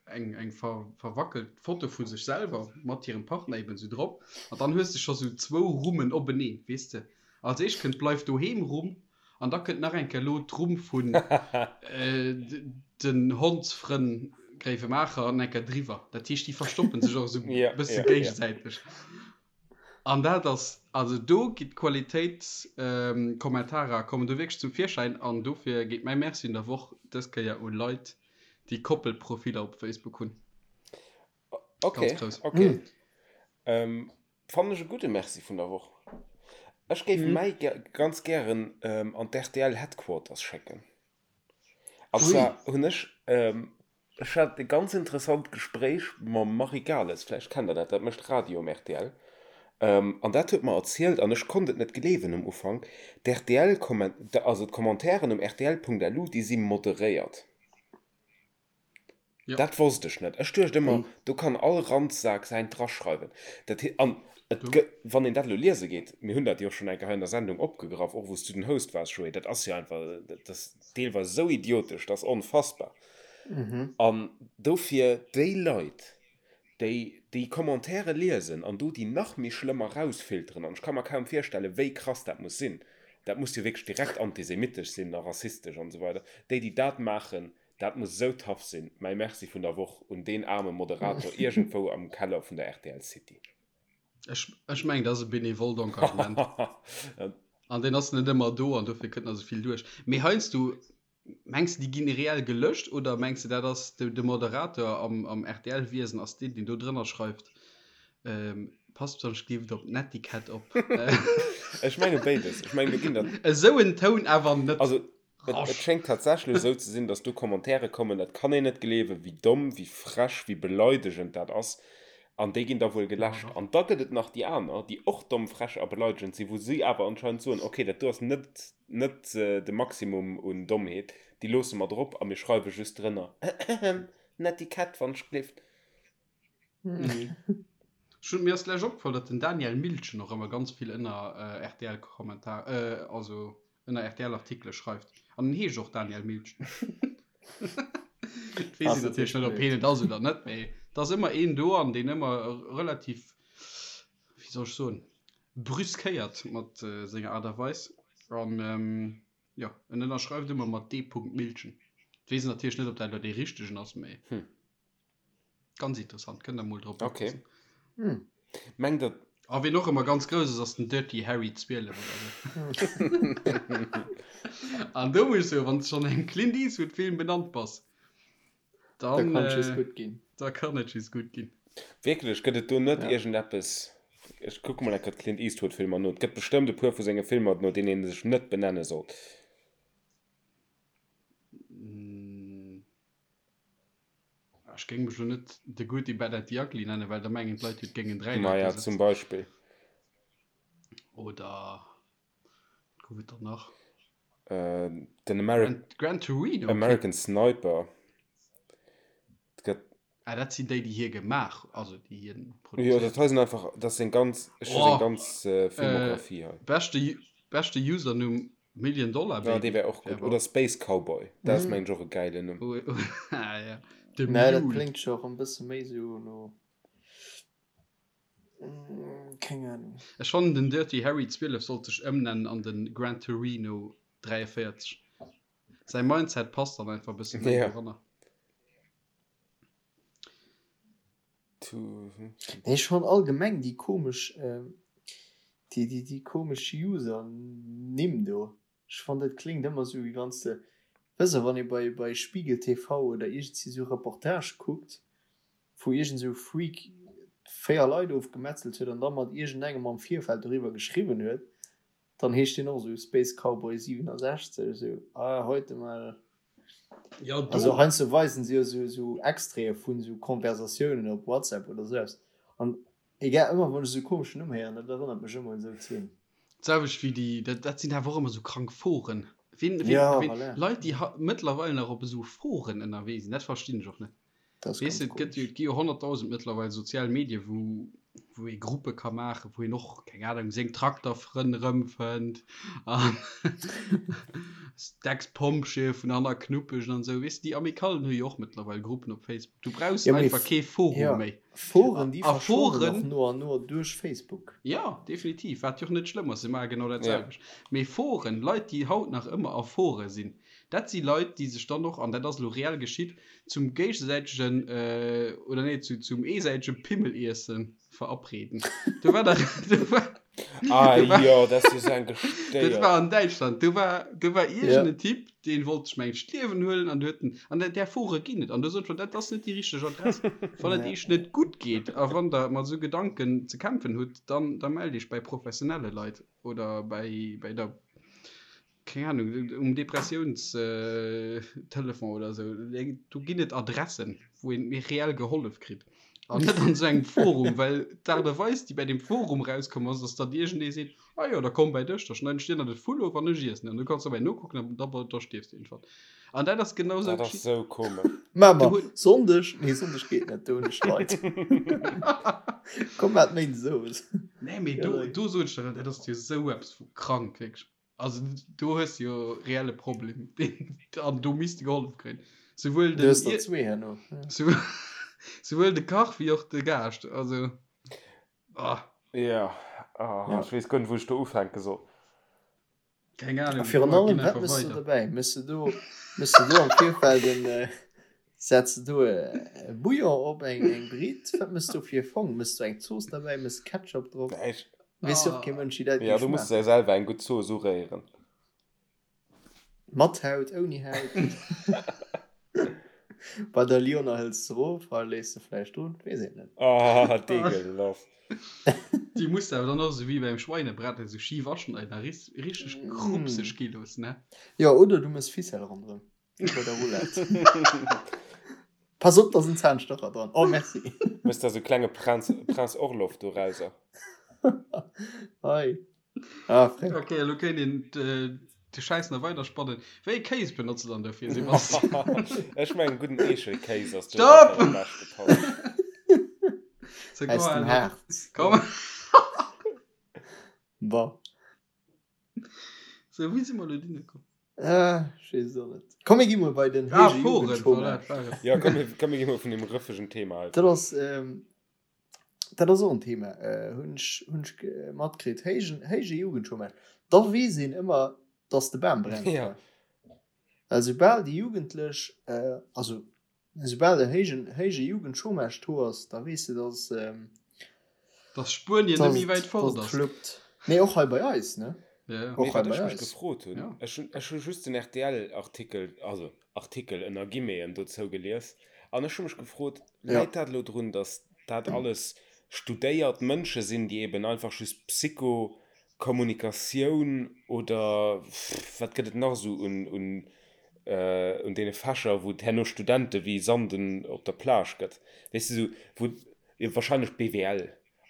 eng eng verwackelt Foto vu sech selwer mat hirem Partner eben sou drop. An dann hues de scho sou zwou Rummen openeen, weess de. Als éischt kënnt d'Bleif doheem Rumm an da kënnt nach eng Kéier elo d'Rumm vun den Hondsfrënn Gréiwemaacher an eng Kéier driwwer. Dat heescht, déi verstoppen sech och esou e bësse géigesäiteg. An dat ass, also do gi d'Qualitéitskommentarer kommen do wierklech zum Virschäin an dofir geet mäi Merci un der Woch dës Kéier u Leit, déi Koppelprofiller op Facebook hunn. Okay, Ganz grouss. okay. Ähm, fannen ech e gudde Merci vun der Woch. Ech géif mäi ganz gären an d'RTL Headquarters schécken. An zwar hunn ech, ech hat e ganz interessant Gespréich mam Marie Gales, vläicht kennt der dat, dat mécht Radio um rtl, an dat huet mer erzielt, an ech konnt et net gleewen um Ufank, d'RTL-Kommen, also d'Commentairen um rtl.lu, déi si moderéiert. Ja. Dat wosst ech net. Ech duecht ëmmer, do kann all Ranzsak säint draschreiwen. Dat he, an et gë, wann een dat elo liese geet, mir hunn dat jo och schonn eng Kéier hei an der Sendung opgegraff, och wou s du den Host waars, Joé, dat ass jo einfach, dat ass deelweis esou idiotesch, dat ass onfassbar. An dofir déi Leit, déi déi Commentaire liesen an do déi nach méi schlëmmer rausfilteren, an ech ka mer kaum virstellen, wéi krass dat muss sinn, dat muss jo wierklech direkt antisemitesch sinn a rassistesch an esou weider, déi, déi dat maachen, dat muss esou tough sinn. Mäi Merci vun der Woch un deen aarme Moderator iergendwou am Keller vun der rtl City. Ech, ech mengen, dat ass e benevolt Engagement. An deen ass net ëmmer do an dofir kënnt nach esou vill duerch. Mee heiansdo Mengs de déi ginn reell gelöscht oder mengs de dat ass de Moderator am am rtl Wiesen ass deen deen do drënner schreift passt besonnesch gleeft op d'Netiquette op. Ech menge béides. Ech mengen do ginn der. Esou en Toun awer net. Also et et schéngt tatsächlech esou ze sinn, datt do Commentaire kommen, dat kann een net gleewen, wéi domm, wéi frech, wéi beleidegend dat ass. An déi ginn da wuel geläscht. An da gëtt et nach déi aner, déi och domm, frech a beleidegend sinn, wou si awer anscheinend soen, okay, dat do ass net, net de Maximum un Dommheet, déi loosse mer drop a mir schreiwe just drënner, Ahem, Netiquette, wann ech gleeft. Ech hunn, mir ass lech opgefall, datt den Daniel Miltgen och ëmmer ganz vill ënner RTL-Kommentar, also ënner RTL-Artikele schreift. An en heescht och Daniel Miltgen. Et weess een natierlech net, ob hien et ass oder net, mee et ass ëmmer een do an deen ëmmer relativ, wéi soll ech soen, brüskéiert mat senger Aart a Weis. An jo, en ënnerschreift ëmmer mat D. Miltgen. Et weess een natierlech net, ob dat elo dee richtegen ass, mee. Ganz interessant, kënnt der mol drop Okay. oppassen. Hm. Mengt der. A wien och ëmmer ganz grouss ass, ass den Dirty Harry 12 oder sou. An do muss ech soen, wann s de schonn engem Clint Eastwood Film benannt bass, Da dann, kann et just äh, gutt ginn. da kann et just gutt ginn. Wierklech, gëtt et do net Ja. iergendeppes? Ech kucke mol eng Kéier d'Clint Eastwood Filmer no. Et gëtt bestëmmt e puer vu senge Filmer, no deenen ee sech net benenne sollt. Ech géing mech lo net The Good, The Bad and The Ugly nennen, well da mengen d'Leit jo, et géingen 3 Leit Maja, do zum sëtzen. Beispill. Oder wat gouf et dann nach? Äh, den Ameri Gran, Gran Torino? American Sniper. Et gëtt. Ah, dat sinn déi, déi hie gemaach, also déi hien Jo, produzéiert. dat hei sinn einfach, dat ass seng ganz, ech hu seng Oh, ganz äh, Filmografie hei. beschte, beschte Usernumm Million Dollar Ja, dee Baby. wär och gutt. Oder Space Cowboy, dat ass mengen ech och e gäilen Numm. Ah, ja. The Mä dat Mule. kléngt scho rëm bësse méi sou no. Keng Ahnung. Ech fannen den Dirty Harry 12 sollt sech ëmnennen an den Gran Torino 43. Säi Mindset passt dann einfach e bësse méi doranner. Nee, ech fannen allgemeng déi komesch, déi, déi, déi komesch User-Nimm do. Ech fannen dat kléngt ëmmer sou wéi wanns de, weess de, wann ee bei, bei Spiegel TV oder iergendsi sou Reportage kuckt, wou iergend sou Freak 4 Leit ofgemetzelt huet an da mat iergendengem am Virfeld doriwwer geschriwwen huet, dann heescht deen och sou Space Cowboy 67, sou ah heute mal. Ja, do. Also heiansdo weisen se jo sou, sou Extraite vun sou Konversatiounen op WhatsApp oder sou eppes an egal, ëmmer wann ech sou e komeschen Numm héieren, dat erënnert mech ëmmer un sou Zeen. D'selwecht wéi déi, dat, dat sinn awer och ëmmer sou krank Foren. Wien, wien, Ja, wien, voilà. Leit, déi ha mëttlerweil nach op esou Foren ënnerwee sinn, dat verstinn ech och net. Dat ass Weess ganz de, et gëtt jo, komesch. et gi jo 100.000 mëttlerweil sozial Medie wou, wou ee Gruppe ka maachen, wou een och, keng Ahnung, seng Trakterfrënn erëmfënnt an d'Ex-Pompjeeë vun hanner Knuppegen an esou. Weess de, déi Amicallen hu jo och mëttlerweil Gruppen op Facebook. Du brauchs Ja, mee einfach kee Forum ja, méi. Foren, déi A verschwannen och Foren. no an no duerch Facebook. Jo, definitiv, wat jo och net schlëmm ass, se maache genau dat Ja. selwecht. Mee Foren, Leit, déi haut nach ëmmer a Fore sinn, dat si Leit, déi sech dann och, an dat ass elo reell geschitt, zum géigesäitegen, oder nee, zu, zum eesäitege Pimmeliesse verabreden. Do war der, do war, Ah do war, jo, dat ass jo sou eng dat Gestéiert. war an Däitschland, do war, do war Ja. iergend en Typ, deen wollt sech mengt d'Liewen huelen an du huet en, an där Fore ginn et, an du sot schon, dat ass net déi richteg Adress. Wann et Ja. iech net gutt geet a wann der mat esou Gedanken ze kämpfen hutt, dann, da mellt iech bei professionelle Leit oder bei, bei der, keng Ahnung, um Depressiounstelefon oder esou. Do ginn et Adressen, wou een méi reell gehollef kritt. An net an esou engem Forum, well d'Aart a Weis, déi bei deem Forum rauskomm ass, ass, datt iergendee seet, Ah jo, da komm bäi dech, da schneiden ech dir nach de Vull of an ech iessen en. An du kanns dobäi nokucken an da, da stierfs de iergendwann. An dat ass genau esou Dat ass geschitt. sou komesch. Maache Du mer huet. Sonndeg, nee Sonndeg geet net, do hunn ech Leit. Komm maacht Méindes owes. Nee, mee do, do sot ech der, dat ass jo esou eppes vu krank, wierklech. Also do hues de jo reelle Problem an do misst de gehollef kréien. Souwuel Du den hues der zwee herno. souwuel de Kach wéi och de Gaascht. Also ah. Ja, ah, Ja. ech weess guer net wou ech do ufänke soll. Keng A Ahnung, virun komm mer allem, ginn wat einfach mëss du weider. dobäi? Mëss du do, mëss du do am Virfeld en, äh, setz du do e Bouillon op, eng, eng Britt? Wat mëss du fir e Fong? Mëss du eng Zooss derbäi? Mëss Ketchup drop? Nee, ech, Weess jo och kee Mënsch, wéi dat ja, géif du muss schmaachen. der selwer eng gutt Zooss uréieren. Mat Haut, ouni Haut. Bei der Lyoner hëls de erof, hei léiss de vläicht drun, weess een net. Ah, degelaf. Déi muss de awer dann och esou wéi beim Schweinebraten esou schif aschneiden a richteg krupseg gi loossen, ne? Jo, oder du mëss Ficelle ronderëm, wéi bei der Roulette. Pass op, da sinn Zahnstocher dran. Oh, merci. Mëss der sou klenge Prinz, Prinz Orloff dorauser. Hei. Ah, Fréck. Okay, elo kéint een de Schäiss nach weider spannen. Wéi ee Kéis benotzt de dann dofir, Sebastian? Ech mengen gudden Eechelkéis ass do Stopp! dat wat am beschte passt. So, Aus komm, dem Harz. Komm. Bon. So, wéi si mer elo dohinner komm? Ah, ech weess et och net. Komm, mir gi mol bei den Ah, héije Foren, voilà, Jugendchômage. dat war et. Ja, komm, mir, komm, mir gi mol vun deem rëffegen Thema hei Dat fort. ass, ähm, dat ass och en Thema, äh, hunn ech, hunn ech ge- matkritt. Héijen, héije Jugendchômage. Da weess een ëmmer, dass de Bam brennt. Ja. Well soubal déi Jugendlech, äh, also Esoubal e héijen, héije Jugendchômage do ass, da weess de, dass, Dass Spuenien net dass méi et, wäit dass fort et ass. fluppt. Nee, och hei bei eis, ne? Ja, ja. Och Mee hei wat bei ech mech eis. gefrot hunn, Ja. ech hunn, ech hu just den RTL-Artikel, also Artikel ënner Guillemeten dozou gelies, an ech hu mech gefrot, Ja. läit dat elo drun, dass dat alles studéiert Mënsche sinn, déi eben einfach just Psycho, Kommunikatioun oder wat gëtt et nach esou un, un un deene Fächer, wou et herno Studente wéi Sanden op der Plage gëtt, weess de, esou wou, jo wahrscheinlech BWL,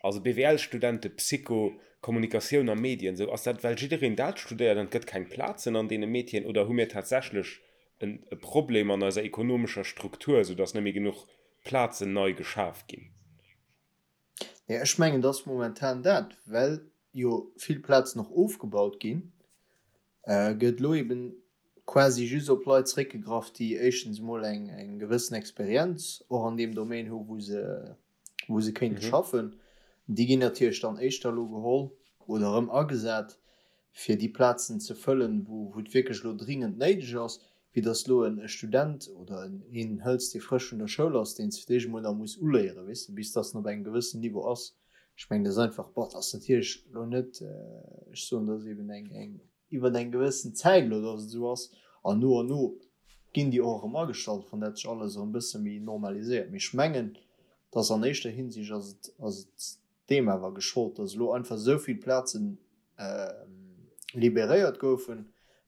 also BWL-Studente, Psycho, Kommunikatioun a Medien, esou, ass dat well jiddereen dat studéiert an et gëtt keng Plazen an deene Métieren oder hu mir tatsächlech en e Problem an eiser ekonomescher Struktur, esou datt net méi genuch Plazen nei geschaf ginn? Nee, ech mengen, et ass momentan dat, well jo vill Plazen och ofgebaut ginn, gëtt elo eben quasi just op Leit zeréckgegraff, déi éischtens emol eng eng gewëssen Experienz och an deem Domaine hu wou se wou se kéinte schaffen. Déi ginn natierlech dann éischter elo geholl oder erëm agesat, fir déi Plazen ze fëllen, wou et wierklech elo dringend néideg ass, wéi datt elo e Student oder een hëls, dee frësch vun der Schoul ass, deen s fir d'éischt emol nach muss uléieren, weess de, bis datt en op engem gewëssen Niveau ass. Ech mengen, dat ass einfach, bon, dat ass natierlech elo net, ech soen, dat ass eben eng, eng iwwer eng gewëssen Zäit elo, datt et esou ass, an no an no ginn déi och erëm agestallt, wann dat sech alles erëm e bësse méi normaliséiert. Mee ech mengen, datt an éischter Hinsicht ass et, ass et deem awer geschollt, datt elo einfach esou vill Plazen liberéiert goufen,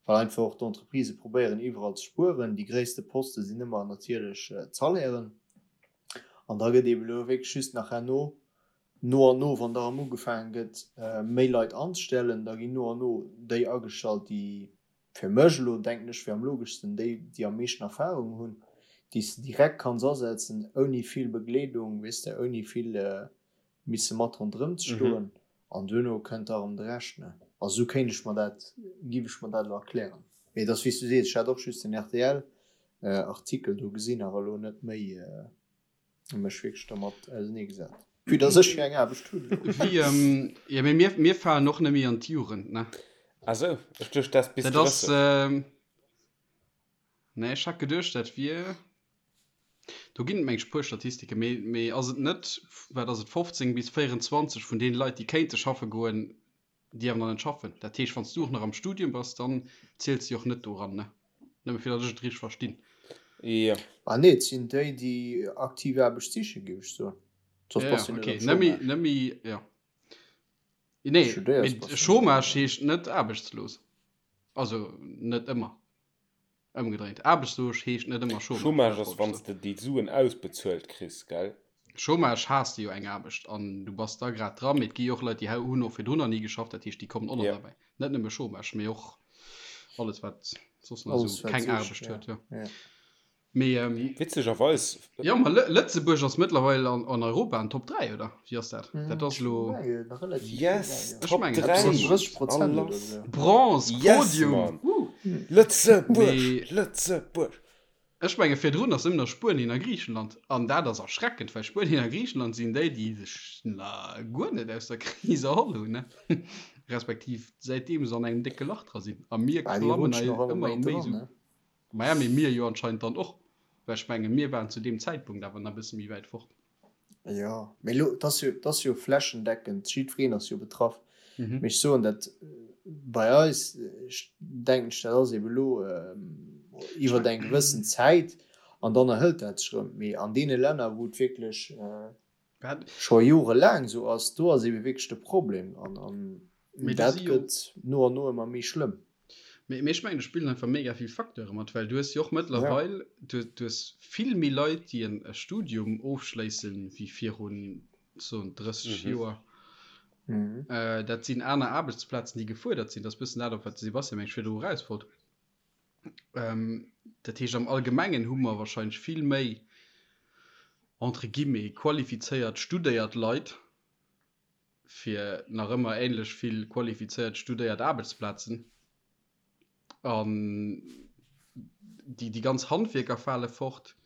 well einfach och d'Entreprisë probéieren iwwerall ze spueren. Déi gréisste Poste sinn ëmmer natierlech d'Salairen. An da gëtt eeben elo wierklech just nach herno no an no, wann da erëm ugefaange gëtt méi Leit anzestellen, da ginn no an no déi agestallt, déi fir mech elo, denken ech, wier am logeschsten déi, déi am meeschten Erfahrung hunn, déi s de direkt kanns asetzen, ouni vill Begleedung, weess de, ouni vill misse mat ronderëm ze stoen. An duerno kënnt da erëm de Rescht, ne? Also esou kéint ech mer dat, giff ech mer dat elo erklären. Mee et ass wéi s du sees, ech hat och just den rtl Artikel do gesinn, awer elo net méi mech wierklech dermat ausenee gesat. Vue dass ech jo eng Aarbecht hunn elo. Wéi, jo mee mir, mir falen och net méi an d'Jugend, ne? Ah sou, ech duecht dat bis Dat ass, 30. nee ech hat geduecht dat wier. Do ginn et meng ech puer Statistike, mee mee ass et net, wat ass et, 15 bis 24 vun deene Leit, déi kéinte schaffe goen, déi awer nach net schaffen. Dat heescht, wann s du och nach am Studium bass, dann ziels de jo och net do eran, ne? Nëmme fir datt ech et richteg verstinn. Jo. Ah nee, et sinn déi, déi aktiv Aarbecht sichen, géif ech soen. Soss Ja, bass ja, du net okay. am Net méi, Chômage. net méi, jo. Nee, Studéiers, mee bass du net am Chômage Chômage. heescht net aarbechtslos. Also net ëmmer. Ëmgedréint, aarbechtslos heescht net ëmmer Chômage, Chômage dat ass wollt ech wann s soen. de déi Suen ausbezuelt kriss, gell? Chômage has de jo eng Aarbecht an du bass da grad dran, mee et gi jo och Leit, déi hunn och virdrun nach ni geschafft, dat heescht déi kommen och nach Jo. derbäi. Net nëmme Chômage, mee och alles wat soss nach Alles esou wat keng sicht, Aarbecht ja. huet, jo. Ja. Mee Witzegerweis. Jo, ma Lëtzebuerg ass mëttlerweil an Europa an Top 3, oder wéi ass dat? Dat ass elo. Yes, Ech Top mengen, 3! dat ass 30% A oder lass! esou. Bronze, Yes, Podium! Mann! Woo! Lëtzebuerg! Mee Lëtzebuerg! ech menge virdrun ass ëmmer nach Spuenien a Griichenland. An dat ass erschreckend, well Spuenien a Griichenland sinn déi, déi sech na guer net aus der Kris erholl hunn, ne? Respektiv säitdeem se an engem décke Lach dra sinn. A mir Bah, déi klammen rutschen hei och ëmmer ëmmer méi méi dran, esou. ne? Maja, mee mir jo anscheinend dann och, well ech menge mir waren zu deem Zäitpunkt awer nach e bësse méi wäit fort. Jo, mee elo, et ass jo, et ass jo flächendeckend, jiddwereen ass jo betraff. Mee ech soen dat bei eis, ech denken ech, dat ass eeben elo iwwer eng gewëssen Zäit an dann erhëlt dat sech erëm. Mee an deene Länner, wou et wierklech scho jorelaang esou ass, do ass eebe wierklech de Problem an dat gëtt no an no ëmmer méi schlëmm. Mee ech mengen, do spillen einfach mega vill Facteure mat, well du hues jo och mëttlerweil, du hues vill méi Leit, déi en Studium ofschléissen, wéi virun, soen, 30 Joer. Dat sinn aner Aarbechtsplazen, déi gefuerdert sinn. Dat ass e bëssen dat, op wat de Sebastian, meng ech, virdru eraus wollt. Dat heescht, am Allgemengen hu mer wahrscheinlech vill méi, entre guillemets, qualifizéiert, studéiert Leit, fir nach ëmmer ähnlech vill qualifizéiert studéiert Aarbechtsplazen. An déi, déi ganz Handwierker fale fort.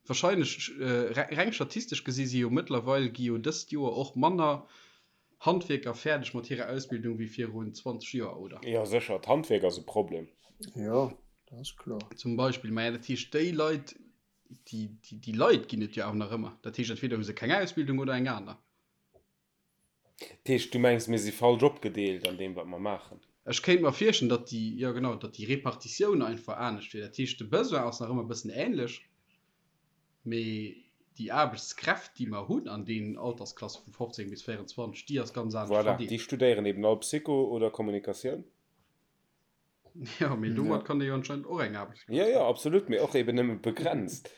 Wahrscheinlech, reng statistesch gesi si jo mëttlerweil, gi jo dëst Joer och manner Handwierker fäerdeg mat hirer Ausbildung wéi virun 20 Joer, oder? Jo, sécher, d'Handwierk ass e Problem. Jo, dat ass kloer. Zum Beispill. Maja, dat heescht, déi Leit, déi, déi, déi Leit ginn et jo awer nach ëmmer. Dat heescht, entweder hu se keng Ausbildung oder eng aner. Dat heescht, du mengs, mir si falsch opgedeelt an deem, wat mer maachen? Ech kéint mer virstellen, datt déi, jo genau, datt déi Repartitioun einfach anescht wier. Dat heescht, de Besoin ass nach ëmmer e bëssen änlech, mee déi Aarbechtskräft, déi mer hunn an deenen Altersklasse vu 15 bis 24, déi ass ganz anescht Voilà, déi verdeelt. studéieren eben all Psycho oder Kommunikatioun. Jo, mee domat kann ee jo anscheinend och eng Aarbechtsplaz Jo, jo, fannen. absolut, mee och eben nëmme begrenzt.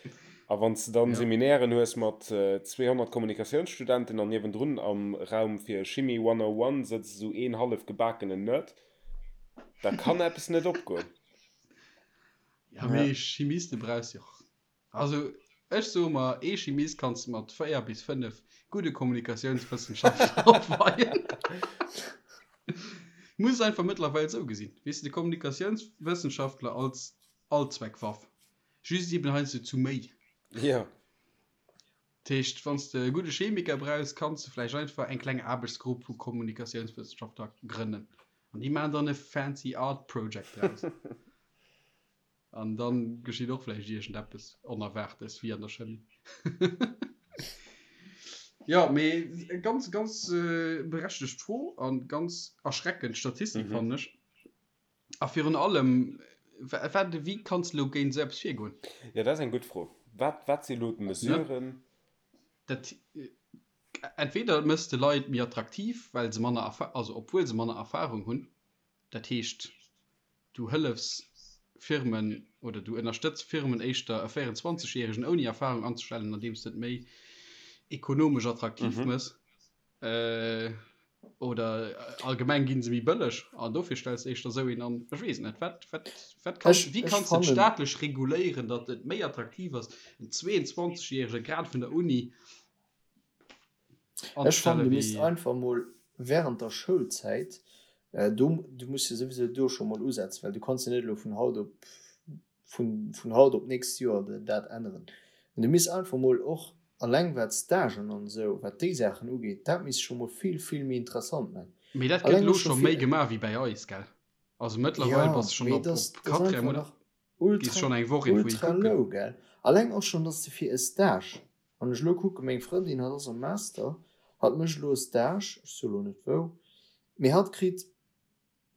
A wann s de dann Ja. Seminairen hues mat 200 Kommunikatiounsstudenten an niewendrun am Raum fir Chimie 101 sëtzt esou een hallef gebakenen Nerd, da kann eppes net opgoen. Ja, mee Chimiste brauchs jo och. Also ech soe mer, ee Chimist kanns de mat 4 bis 5 gudde Kommunikatiounswëssenschaftler opweien. Muss einfach mëttlerweil esou gesinn. Weess de, de Kommunikatiounswëssenschaftler als Allzweckwaff. Just eben heiansdo zu méi. Jo. Dat heescht, wann s de e gudde Chemiker brauchs, kanns de vläicht einfach eng kleng Aarbechtsgrupp vu Kommunikatiounswëssenschaftler grënnen. An déi maachen dann e fancy art project draus. An dann geschitt och vläicht iergendeppes Onerwaartes, wéi an der Chemie. Jo, mee ganz, ganz berechtegt Fro a ganz erschreckend Statistik, fannen ech. A virun allem, wat, wéi kanns de elo géint esou eppes virgoen? Jo, dat ass eng gutt Fro. Wat, wat si elo d'Mesuren? Dat, entweder méchs de Leit méi attraktiv, well se manner Erfa-, also obwuel se manner Erfahrung hunn, dat heescht, du hëllefs Firmen oder du ënnerstëtz Firmen éischter e 24 Järegen ouni Erfahrung anzestellen, andeems de et méi ekonomesch attraktiv méchs. Oder allgemeng ginn se méi bëlleg an dofir stells de éischter esou een an. Ech weess et net. Wat, wat, wat kann, Ech, wéi ech kanns de et fannen. staatlech reguléieren, datt et méi attraktiv ass, en 22 Järege grad vun der Uni Ech fannen, anzestellen, du misst wéi. einfach mol während der Schoulzäit, do, du muss jo souwisou do scho mol usetzen, well du kanns jo net elo vun haut op vun vun haut op d'nächst Joer dat änneren. Mä du misst einfach mol och alleng wat Stagen an esou, wat déi Saachen ugeet, dat misst scho mol vill, vill méi interessant man. Mee dat gëtt Alleng elo och scho scho méi fir, gemaach wéi bäi eis, gell? Also mëttlerweil jo, bass de schonn mee op et ass, op et ass Quatrième einfach oder nach gees ultra, schonn eng Woch iergendwou hi ultra kucken. low, gell? Alleng och schonn, dass de fir e Stage, wann ech elo kucken, meng Frëndin, hatt ass am Master, hatt mécht elo e Stage, ech soe elo net wou, mee hatt kritt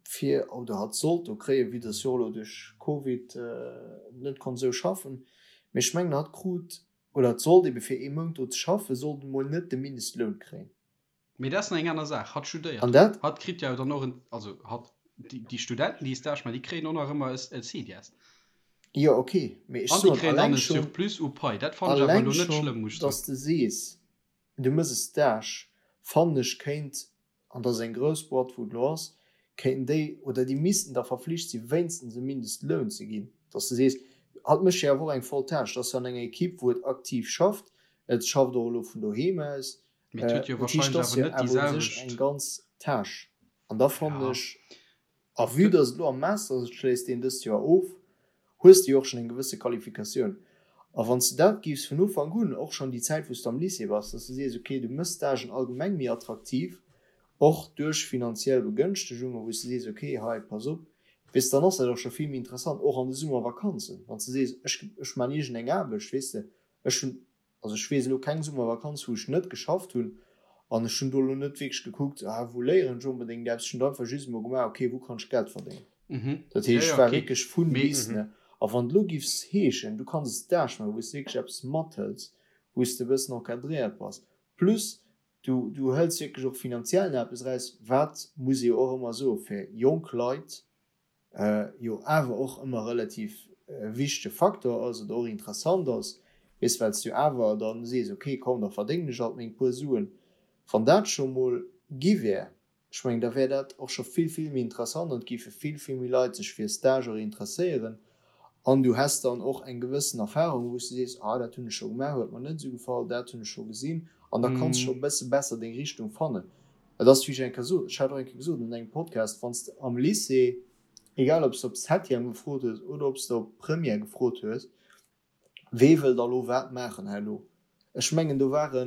fir, oder hatt sollt do kréien, vue dass jo och elo duerch Covid net konnt esou schaffen, mee ech mengen hatt krut, oder hatt sollt ebe fir ee Mount do ze schaffen, sollt emol net de Mindestloun kréien. Mee dat ass nach eng aner Saach. Hatt studéiert. An dat. Hatt kritt jo dann och en, also hatt, déi Studenten, déi e Stage maachen, déi kréien och nach ëmmer e CDS. Jo, ok, mee ech An déi soen, kréien dann alleng e schonn, Surplus u Pai. Dat fannen ech awer alleng elo net schonn, schlëmm, muss ech soen. dass de sees, du méchs e Stage, fannen ech kéint an dat ass eng grouss Boîte wou et elo ass, kéinten déi oder déi missten da verflicht si wéinstens e Mindestloun ze ginn, dass de sees, hatt mécht jo awer och eng voll Tâche, et ass jo an enger Equipe wou et aktiv schafft, et schafft och elo vun doheem aus, Mee et huet jo dat heescht, wahrscheinlech et ass awer jo net déi awer u sech selwecht. eng ganz Tâche an da fannen Ja. ech, A vue dass et elo am Master ass, et schléisst een dëst Joer of, hues de jo och schonn eng gewësse Qualifikatioun. A wann s de dat géifs vun Ufank un, och schonn déi Zäit wou s de am Lycée bass, dass de sees, okay, du méchs Stagen allgemeng méi attraktiv, och duerch finanziell Begënschtegungen, wou s de sees, okay, hei, pass op, weess de, dann ass dat och scho vill méi interessant, och an de Summervakanzen, wann s de sees, ech, ech man iergendeng Aarbecht, weess de, ech hunn Also ech weess elo keng Summervakanz wou ech net geschafft hunn an ech hunn do elo net wierklech gekuckt, ah wou léieren ech onbedéngt eppes, ech hunn einfach just emol gemaach, okay wou kann ech Geld verdéngen. Dat Ja, heescht ja, ech war okay. wierklech vun Mee bis, ne. A wann et elo giffs heeschen, du kanns e Stage maachen wou s de wierklech eppes mathëls, wou s de e bëssen encadréiert bass, plus du du hëls wierklech och finanziell nach eppes eraus, wat, muss ee jo och ëmmer soen, fir jonk Leit jo awer och ëmmer relativ wichtege Faktor ass oder och interessant ass, weess, well s du awer dann sees, ok, komm, da verdéngen ech alt meng puer Suen. Wann dat scho mol gi wär, ech mengen, da wär dat och scho vill, vill méi interessant an et géife vill, vill méi Leit sech fir Stage och interesséieren an du häss dann och eng gewëssen Erfahrung, wou s du sees, ah, dat hunn ech scho gemaach, huet mer net esou gefall, dat hunn ech scho gesinn an da kanns scho e bësse besser deng Richtung fannen. Et ass, wéi ech eng Kéier sot, ech hat och eng Kéier gesot an engem Podcast, wann s de am Lycée, egal ob s de op Septième gefrot hues oder ob s de op Première gefrot hues, wee wëll da lo wat maachen herno? Ech mengen, do ware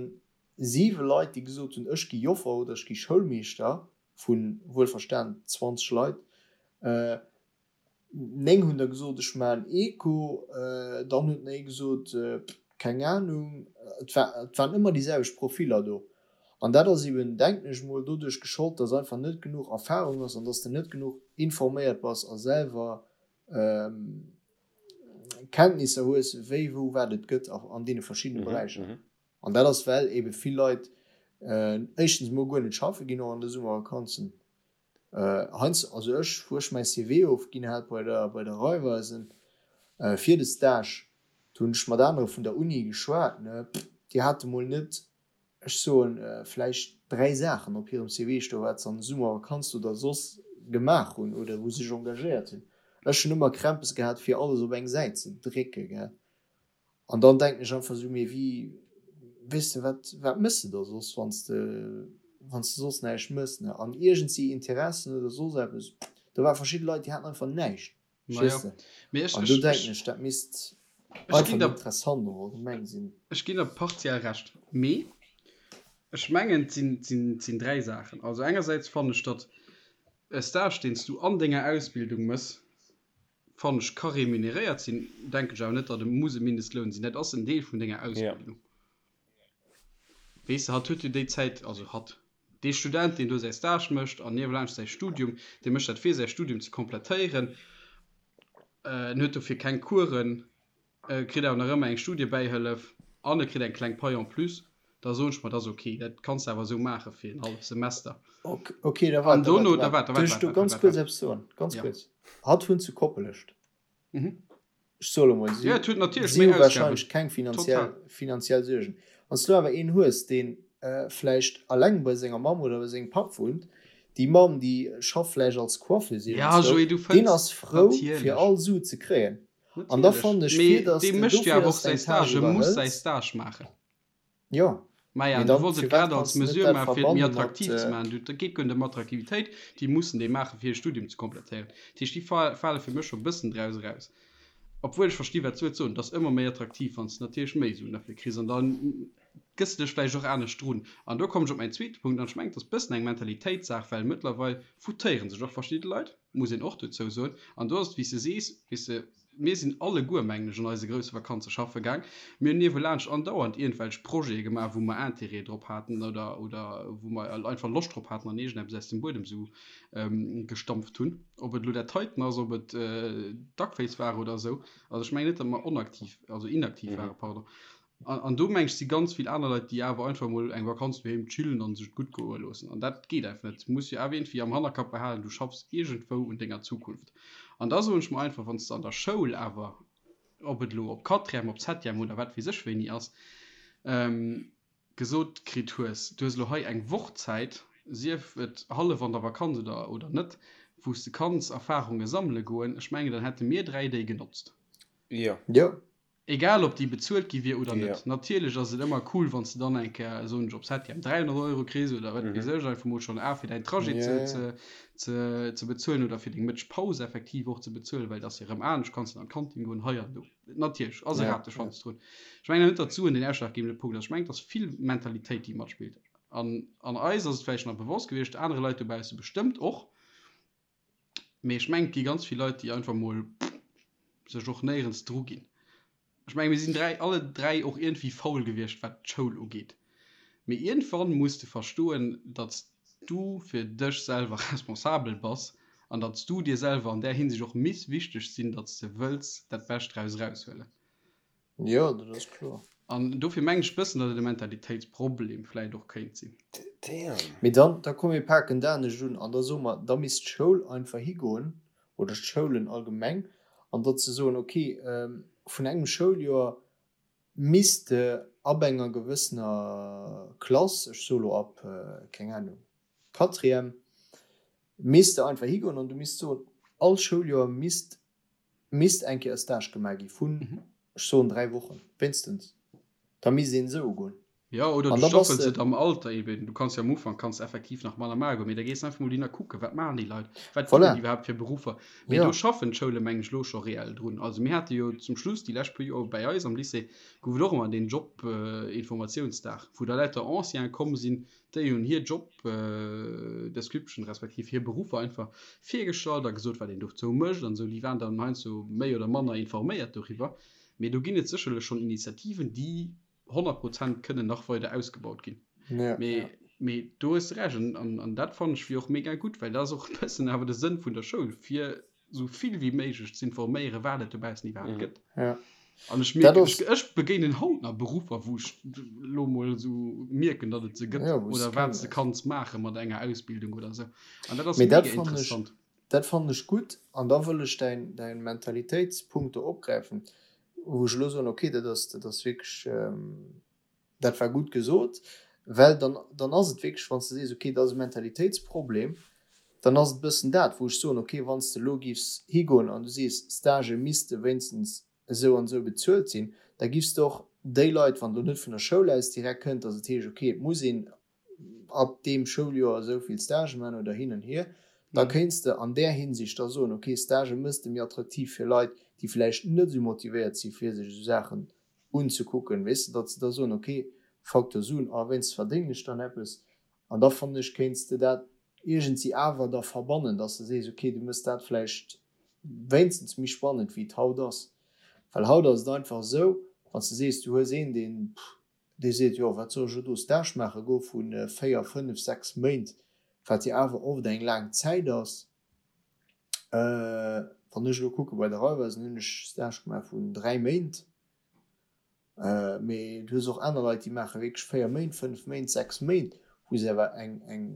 siwe Leit, déi gesot hunn, ech gi Joffer oder ech gi Schoulmeeschter, vu wuelverstan 20 Leit. 9 hunn der gesot, ech maachen Eco, dann huet nach ee gesot, keng Anung. Et war, et waren ëmmer déi selwecht Profiller do. An dat ass eben, denken ech mol, doduerch geschollt, dass einfach net genuch Erfahrung ass an dass de net genuch informéiert bass a selwer Kenntnisser hues, wéi, wou, wat et gëtt an deene verschiddene Beräicher. An dat ass, well ebe vill Leit éischtens emol guer net schaffe ginn, och an de Summervakanzen. Heiansdo, also ech, wou ech mäi CV ofginn hat bei der, bei der Raiffeisen fir de Stage, do hunn ech mat anere vun der Uni geschwat, ne, déi hate mol net, ech soen, vläicht 3 Saachen op hirem CV stoen, wat se an de Summervakanzen oder soss gemaach hunn oder wou se sech engagéiert hunn. Ech hunn ëmmer Krämpes gehat, fir alles op eng Säit ze drécke, gell. An dann denken ech einfach esou, mee wéi, weess de, wat, wat méchs de da soss, wann s de, wann s de soss näischt méchs, ne? An iergendsi Interessen oder soss eppes, do ware verschidde Leit, déi haten einfach näischt, Majo, verstees de? mee ech, An do ech, denken ech. ech, dat misst. Einfach méi interessant och allgemeng sinn. Ech ginn der partiell Recht, mee ech mengen, et sinn, et sinn, et sinn 3 Saachen. Also engersäits fannen ech, datt e Stage, deen s du an denger Ausbildung mëss, fannen ech, ka remuneréiert sinn. Denken ech awer net, datt e muss e Mindestloun sinn. Dat ass en Deel vun denger Ausbildung. Weess de, hatt huet jo déi Zäit, also hatt, dee Student, deen do säi Stage mécht an niewelaanscht säi Studium, dee mécht dat fir säi Studium ze komplettéieren. En huet dofir keng Coursen, e kritt awer nach ëmmer eng Studiebäihëllef an e kritt eng kleng Pai en plus. Da soen ech mer, dat ass ok, dat kanns de awer esou maache fir en halleft Semester. Ok, da waart, da waart, da waart. Duerf ech do ganz kuerz eppes soen? Ganz kuerz. Hatt wunnt zu Koppelescht. Ech soe lo mol, si si hu warscheinlech keng finanziell, finanziell Suergen. Wann s du awer een hues, deen vläicht alleng bei senger Mamm oder bei sengem Papp wunnt, déi Mamm, déi schafft vläicht als Coiffeuse iergendzwou, deen ass frou, fir all Su ze kréien. An da fannen ech, fir datt s de dofir, datt s de eng Tâche iwwerhëls. Jo. Maja, du wolls et grad als Mesure maachen, fir et méi attraktiv ze maachen. Et geet guer net ëm Attraktivitéit, déi mussen déi maachen, fir hir Studium ze komplettéieren. Dat heescht, déi fale fir mech scho e bëssen draus eraus. Obwuel ech versti wat s du wëlls soen, et ass ëmmer méi attraktiv, wann s de natierlech méi Suen derfir kriss an da gëss de dech vläicht och anescht drun. An do kommen ech op mäin zweete Punkt an ech mengen, et ass e bëssen eng Mentalitéitssaach, well mëttlerweil foutéiere sech och verschidde Leit, muss een och dozou soen. An do ass et, wéi s de sees, weess de, Mir sinn alleguer, mengen ech, an eise grousse Vakanze schaffe gaang. Mir hunn niewelaanscht andauernd iergendwelch Projete gemaach, wou mer Intérêt drop haten oder, oder wou mer einfach Loscht drop haten an iergendeppes aus dem Buedem esou gestampft hunn. Ob et elo dat heiten ass, ob et Duckface war oder esou. Also ech mengen net, datt mer onaktiv, also inaktiv waren, pardon. An, an do meng ech si ganz vill aner Leit, déi awer einfach mol eng Vakanz doheem chillen an sech et gutt goe loossen. An dat geet einfach net. Du muss jo awer iergendwéi am Hannerkapp behalen, du schaffs iergendwou un denger Zukunft. An da soen ech mer einfach, wann s de an der Schoul awer, ob et elo op Quatrième, op Septième oder wat weess ech wéini ass, gesot kritt hues, du hues elo hei eng Woch Zäit, sief et hallef an der Vakanz oder, oder net, wou s de kanns Erfarunge sammele goen, ech mengen, dann hätte mir 3 déi genotzt. Jo. Jo. Egal ob déi bezuelt gi wier oder net. Natierlech ass et ëmmer cool, wann s de dann eng Kéier, soen ech, op Septième 300 Euro kriss oder wat weess ech, einfach mol schonn A fir däin Trajet ze, ze, ze bezuelen oder fir deng Mëttegpaus effektiv och ze bezuelen, well et ass jo erëm anescht, kanns de an d'Kantin goen, hei an do. Natierlech ass e Rateschwanz drun. Ech mengen net, datt d'Suen den ausschlaggebende Punkt ass. Ech mengen, et ass vill Mentalitéit, déi matspillt. An, an eis ass et vläicht nach bewosst gewiescht, anere Leit dobausse bestëmmt och. Mee ech mengen, et gi ganz vill Leit, déi einfach mol sech och néierens dru ginn. Ech mengen, mir sinn 3, alle 3 och iergendwéi faul gewiescht, wat d'Schoul ugeet. Mee iergendwann muss de verstoen, datt s du fir dech selwer responsabel bass an datt s du dir selwer an där Hinsicht och miss wichteg sinn, datt s de wëlls dat Bescht draus eraushuelen. Jo, dat ass kloer. An dofir mengen ech bëssen, datt et e Mentalitéitsproblem vläit och kéint sinn. Damn. Mee dann, da komm mir paken dat anescht un an da soe mer, da misst d'Schoul einfach higoen, oder d'Schoulen allgemeng, an datt se soen, okay, vun engem Schouljoer misst de ab enger gewëssener Klass, ech soe lo ab, keng Ahnung, Quatrième, misst de einfach higoen an du misst soen, all Schouljoer misst Misst eng Kéier e Stage gemaach gi vun, ech soen 3 Wochen, wéinstens. Da misst een esou ugoen. Jo, oder du staffels et am Alter eben. Du kanns jo am Ufank kanns effektiv nach manner maachen, mee da gees de einfach mol hin a kucken, wat maachen déi Leit, wat ginn et iwwerhaapt fir Beruffer. Mee do schaffen d'Schoule meng ech elo scho reell drun. Also mir hate jo zum Schluss déi lescht puer Joer bei eis am Lycée gouf et och ëmmer deen Job-Informatiounsdag, wou da lauter Ancienen komm sinn, Déi hunn hir Job Description respektiv hir Beruffer einfach virgestallt a gesot, wat een dozou mécht an esou. Déi waren dann heiansdo méi oder manner informéiert doriwwer. Mee do ginn et sécherlech schonn Initiativen, déi 100 Prozent kënnen nach weider ausgebaut ginn. Mee, mee do hues de Recht an, an dat fannen ech wier och mega gutt, well dat ass och e bëssen awer de Sënn vun der Schoul, fir sou vill wéi méiglech ze informéieren, wat et dobaussen iwwerhaapt gëtt. Ja. An ech mierken, ech, ech begéinen haut nach Beruffer, wou ech lo mol sou mierken, datt et se gëtt ja, oder wat s de kanns maache mat enger Ausbildung oder sou. An dat ass mega interessant. Dat fannen ech gutt an da wëll ech däin, däin Mentalitéitspunkt do opgräifen, wou ech elo soen, okay, dat ass, dat ass wierklech, Dat war gutt gesot, well dann, dann ass et wierklech, wann s de sees, okay, dat ass e Mentalitéitsproblem, dann ass et e bëssen dat, wou ech soen, okay, wann s de elo giffs higoen an du sees, Stagë misste wéinstens esou an esou bezuelt sinn, da giffs de och déi Leit, wann et elo net vun der Schoul aus direkt kënnt, datt et heescht, okay, et muss een ab deem Schouljoer esou vill Stagë maachen oder hin an hier, da kéints de an där Hinsicht da soen, okay, Stagë mëss de méi attraktiv fir Leit, déi vläicht net esou motivéiert si fir sech esou Saachen unzekucken, weess de, datt se da soen, ok, Facteur Suen, a wéinst verdéngen ech dann eppes. An da fannen ech, kéints de dat iergendwéi awer da verbannen, datt s de sees, ok, du méchs dat vläicht wéinstens méi spannend wéi et haut ass. Well haut ass et einfach esou, wann s de sees, du hues een, deen, dee seet, jo, wat soll ech elo do Stage maache goe vu 4, 5, 6 Méint, wat jo awer oft eng laang Zäit ass. Wann ech elo kucke bei der Raiffeisen hunn ech Stage gemaach vun 3 Méint. Mee du hues och aner Leit, déi maache wierklech 4 Méint, 5 Méint, 6 Méint, wou se awer eng, eng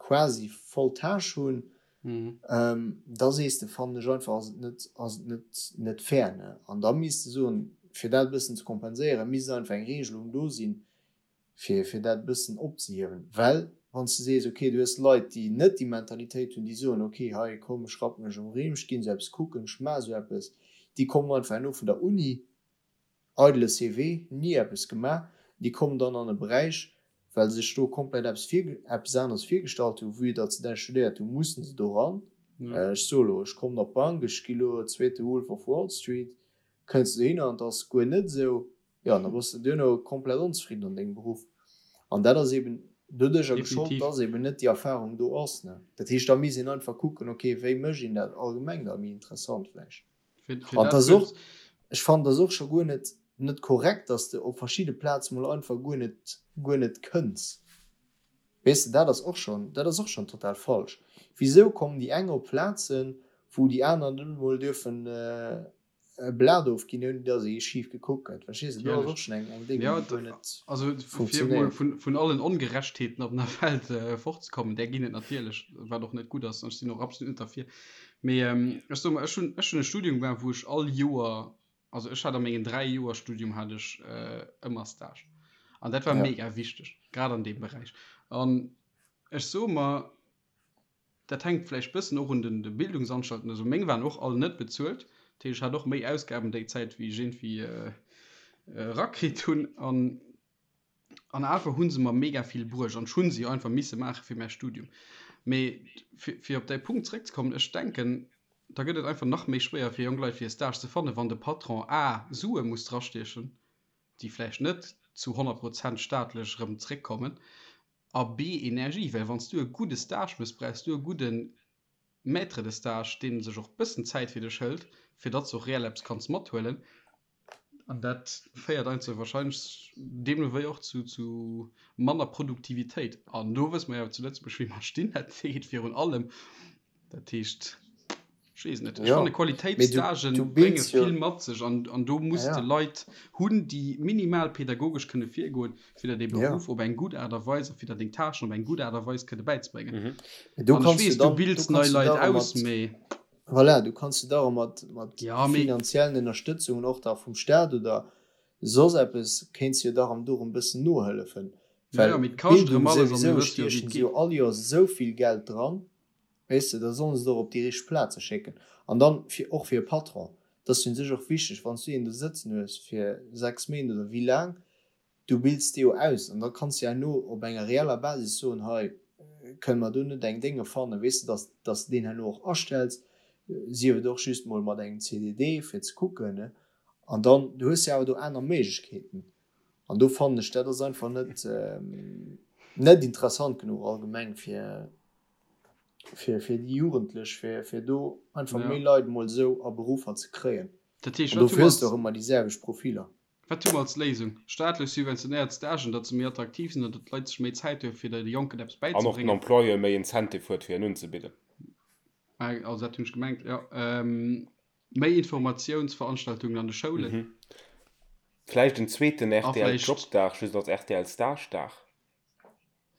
quasi voll Tâche hunn. Da sees de, fannen ech einfach, ass et net, ass et net, net fair, ne? An da misst de soen, fir dat e bëssen ze kompenséieren, misst einfach eng Regelung do sinn, fir, fir dat e bëssen opzehiewen. Well wann s de sees, okay, du hues Leit, déi net déi Mentalitéit hunn, déi soen, okay, hei komm, ech rappe mech um Rimm, ech ginn esou eppes kucken, ech maache esou eppes, déi kommen einfach herno vun der Uni, Eidele CV, ni eppes gemaach, déi kommen dann an e Beräich, well se sech do komplett eppes vir, eppes aneres virgestallt hunn, vue datt se dat studéiert hunn, mussen se do ran. Ech soe lo, ech kommen op d'Bank, ech gi lo zweete Wolf of Wall Street, kënns de dohinner an et ass guer net esou, jo, an da bass de duerno komplett onzefridden an dengem Beruff. An dat ass eben doduercher geschollt, datt eben net déi Erfahrung do ass, ne. Dat heescht, da misst een einfach kucken, okay, wéi mécht een dat allgemeng da méi interessant vläicht. An dat ass och, ech fannen, dat ass och scho guer net, net korrekt, dass de op verschidde Plaze mol einfach guer net, guer net kënns. Weess de, dat ass och schonn, dat ass och schonn total falsch. Wisou kommen déi eng op Plazen, wou déi aner net emol dierfen e Blat ofginn, ouni dass ee schif gekuckt gëtt? Verstees de, do ass och schonn eng, eng Déng, déi guer net Also fir emol funktionéiert. vun, vun allen Ongerechtheeten op der Welt fortzekommen, där ginn et natierlech, wat och net gutt ass, an ech sinn och absolut net derfir, Mee ech soe mer, ech hunn, ech hunn e Studium gemaach, wou ech all Joer, also ech hat a mengen 3 Joer Studium hat ech ëmmer Stage. An dat war mega wichteg, grad an deem Beräich. An ech soe mer, dat hänkt vläicht bëssen och un den de Bildungsanstalten, also meng waren och all net bezuelt, dat heescht ech hat och méi Ausgaben déi Zäit wéi ech iergendwéi erakritt hunn. An An awer hu se mer mega vill bruecht an ech hu se jo einfach misse maache fir mäi Studium. Mee fir op däi Punkt zeréckzekommen, ech denken, da gëtt et einfach nach méi schwéier fir jonk Leit fir e Stage ze fannen, wann de Patron a Sue muss drastiechen, déi vläicht net zu 100 Prozent staatlech erëm zeréckkommen, a b Energie, well wann s du e gudde Stage méchs, brauchs du e gudde Maître de stage, dee sech och bëssen Zäit fir dech hëlt, fir datt s och reell eppes kanns mathuelen. An dat féiert einfach wahrscheinlech deemno wéi och zu, zu manner Produktivitéit. An do wësse mer jo zu Lëtzebuerg, wéi mer stinn. Dat geet virun allem. Dat heescht, ech weess net. Ech fanne Qualitéitsstagen brénge vill mat sech an, an do muss de Leit hunn, déi minimal pädagogesch kënne virgoen, fir der dee Beruff op eng gutt Aart a Weis a fir der deng Tâchen op eng gutt Aart a Weis kënne bäizebréngen. An ech weess, du bilds nei Leit aus, mee. Voilà, du kanns jo da och mat, mat ja, finanziellen Ënnerstëtzungen och da vum Staat oder soss eppes, kéints jo da erëm dorum bëssen nohëllefen. Well ja, Bildung souwisou stiechen se jo all Joers esou vill Geld dran, weess de, da sollen se et och op déi richteg Plaze schécken. An dann fir, och fir e Patron, dat ass jo un sech och wichteg, wann s du een do sëtzen hues fir 6 Méint oder wéi laang, Du bilds déi jo aus an da kanns de herno op enger reeller Basis soen, hei kënne mer do net eng Dénge fannen, weess de, dass dass de deen herno och astells, sief et och just mol mat engem CDD fir ze kucken, ne. An dann, du hues jo awer do aner Méiglechkeeten an do fannen ech, dat ass einfach net net interessant genuch allgemeng fir fir fir déi Jugendlech, fir fir do einfach méi Leit mol esou a Beruffer ze kréien. Dat heescht, An dofir hues de och ëmmer déi selwecht Profiler. Wat hu mer als Léisung? Staatlech subventionéiert Stagen, datt se méi attraktiv sinn an datt d'Leit sech méi Zäit hu fir de Jonken eppes An och den bäizebréngen. Employeur méi Incentive huet fir en unzebidden. Also dat hunn ech gemengt, jo. Méi Informatiounsveranstaltungen an de Schoulen. Vläicht en zweeten A rtl vläicht. Jobdag just als rtl Stagedag.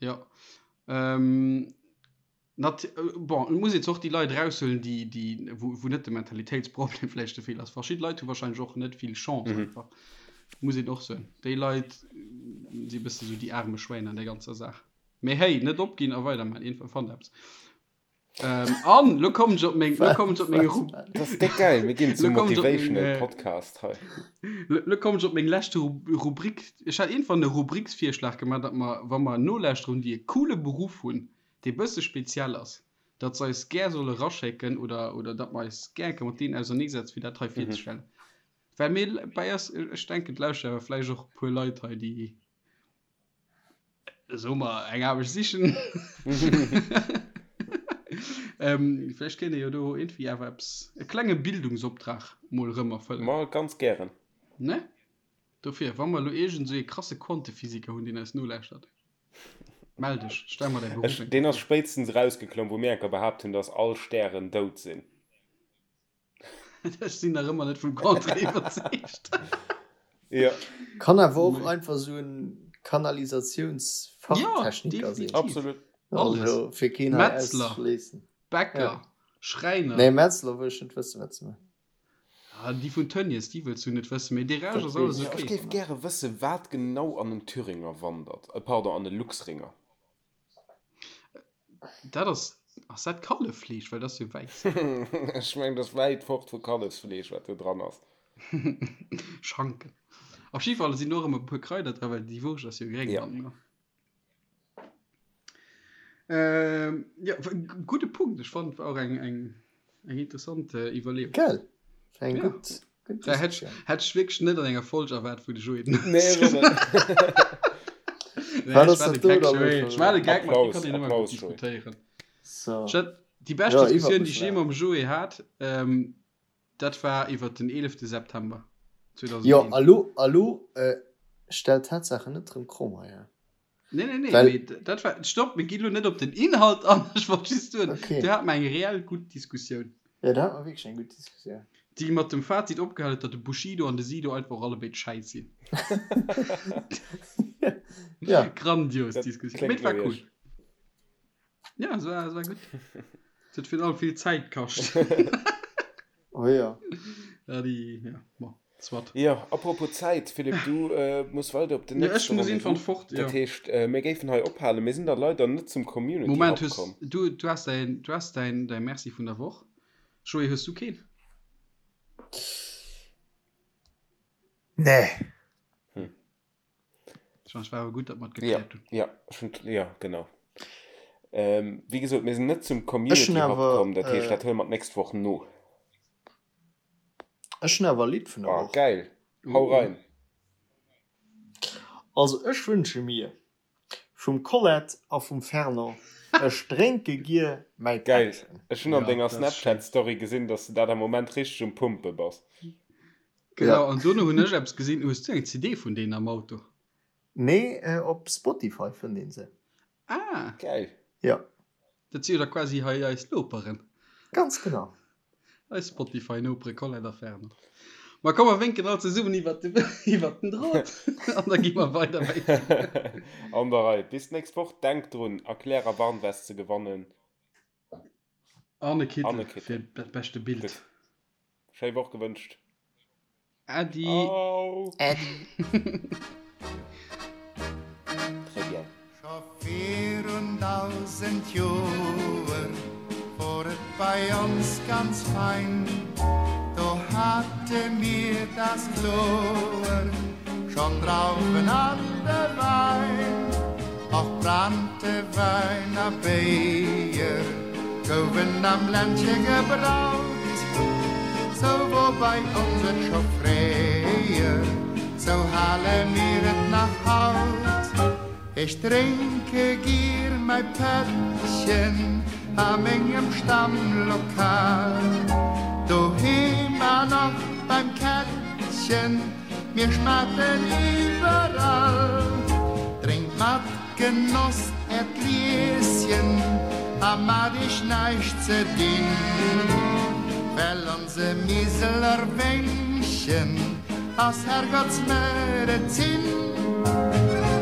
Jo. Nat bon, et muss een zwar och déi Leit eraushuelen, déi, déi, wou, wou net de Mentalitéitsproblem vläicht de Feeler ass. Verschidde Leit hu wahrscheinlech och net vill Chance mhm. einfach. Muss een och soen. Déi Leit si bësse sou déi arme Schwäin an der ganzer Saach. Mee hey, net opginn a weiderman, iergendwann fannt eppes. Ähm, an lo kommen ech op meng, lo kommen ech op meng Ru Das ist déck geil, mir ginn zum Motivational äh, Podcast hei. Lo kommen ech op meng leschte Rubrik. Ech hat iergendwann e Rubriksvirschlag gemaach, datt mer, wa mer Nolauschterer hunn, déi e coole Beruff hunn, dee bësse speziell ass. datt se eis gär solle raschécken oder, oder datt mer eis gär eng Kéier mat deenen auserneesetzen, fir dat hei virzestellen. Well mir bei eis, ech denken, et lauschteren awer vläicht och e puer Leit hei, déi, soe mer, eng Aarbecht sichen. Ähm, vläicht kéint ee jo do iergendwéi awer eppes, e klenge Bildungsoptrag mol erëm erfëllen. Ma ganz gären. Ne? Dofir, wa mer elo iergend esou ee krasse Quantephysiker hunn, deen eis nolauschtert, mell dech, stell mer däi Beruff Ech, eng deen Kéier ass vir. spéitstens erausgeklomm, wou mir enker behaapt hunn, dass all Stären dout sinn. Ech sinn nach ëmmer net vum Contraire iwwerzeegt. Jo. Kann awer och einfach esou en Kanalisatiounsfachtechniker sinn. Ja, definitiv. Absolut. Alles. Also fir keen hei Metzler, auszeschléissen. Bäcker, Ja. Schräiner. Nee, Metzler wëll ech net wëssen, wat se maachen. Ah, déi vun Tönnies, déi wëlls du net wëssen, mee dee Rescht Dat ass alles weess Jo, ech ech ok. géif gäre wëssen, wat genau an en Thüringer wandert. Äh, pardon, an e Luxringer. Dat ass, ass dat Kalleffleesch? Well dat ass jo wäiss. Ech mengen, dat ass wäit fort vu Kallefsfleesch, wat do dran ass. Schanken. Op jidde Fall sinn och ëmmer e puer Kraider dran, well déi Wurscht ass jo gréng Ja. dann, ne? Ähm, ja, gudde Punkt. Ech fand war och eng, eng, eng interessant äh, Iwwerleeung. Gell? War eng Ja. gutt, gutt Da hätt Diskussioun. hätt ech wierklech net an enger Folg erwaart, wou de Joé den Nee, ech och net. Nee, Wat ech ass war de dat do Gag, da elo Joé. scho Ech war de wieder? Gag, mat dir Applaus, kann een ëmmer gutt Applaus, Joé. diskutéieren. So. Ech hat déi bescht Ja, iwwert Diskussioun, déi mech ech jee lachen. mam Joé hat, ähm, dat war iwwert den 11. September Jo, 2001. a lo, a lo äh, stell d'Tatsaachen net rëm kromm hei, hä? Nee, nee, nee, Well- mee dat war, stopp, mir ginn elo net op den Inhalt an, ech wollt just soen, Okay. do hate mer eng reell gutt Diskussioun, Ja, da hat mer wierklech eng gutt Diskussioun. déi mat dem Fazit opgehal huet, datt de Bushido an de Sido einfach och allebéid schäiss sinn. Ja. Grandios Dat Diskussioun, mee kléngt et war no cool. iech. Ja, es war, es war gutt. Et huet virun allem vill Zäit kascht. Oh ja. Ja, déi, ja, bon, soit. Jo, apropos Zäit, Philippe, du muss weider op den Ja, ech nächste muss irgendwann Rendez-vous. fort, ja. Dat heescht, mir géifen hei ophalen. Mir sinn da leider net zum Community Moment, Hub hues komm. du, du has däin, du has däin, däi Merci vun der Woch. Joé, hues du keen? Nee. Hm. Ech mengen, et war awer gutt, datt mer et Ja, gekläert hunn. ja, ech hunn, ja, genau. Ähm, wéi gesot, mir sinn net zum Ech hunn Community Hub awer, komm, dat heescht, äh, dat huele mer d'nächst Woch no. Ech hunn awer e Lidd vun der Ah, Woch. geil. Hau Uh. rein. Also ech wënsche mir vum Colette a vum Fernand, Ech drénke gier mäi Geil. Pättchen. Ech hunn an Ja, denger dat ass schéin. Snapchat-Story gesinn, dass de dat am Moment richteg um Pumpe bass. Genau, Ja. an dono hunn ech eppes gesinn. Hues du eng CD vun deenen am Auto? Nee, op Spotify fënnt een se. Ah! Geil. Ja. Dat si jo da quasi hei eis Noperen. Ganz genau. Eis Spotify-Nopere Colette a Fernand. Ma komm, mer wénken all zesummen iwwert de, iwwert den Drot an da gi mer weider wéinken. An der Rei. Bis d'nächst Woch. Denkt drun, Erklär a Warnwest ze gewannen. An e Kittel An e Kittel. fir dat beschte Bild. Gutt. Schéi Woch gewënscht. Äddi. Au. Äddi. Très bien. Scho virun 1000 Joer wor et bei ons ganz fein, do hate mir das kloer schon Drauwen an de Wein. Och Branntewäin a Béier gouwen am Ländche gebraut, sou wor bei ons et scho fréier, sou hale mir et nach haut. Ech drénke gier mäi Pättchen a mengem Stammlokal, doheem an och beim Kättchen, mir schmaten iwwerall. Drénkt mat Genoss äert Glieschen a mat iech näischt ze dinn, well onse Miseler Wéngchen ass Herrgottsmedezin.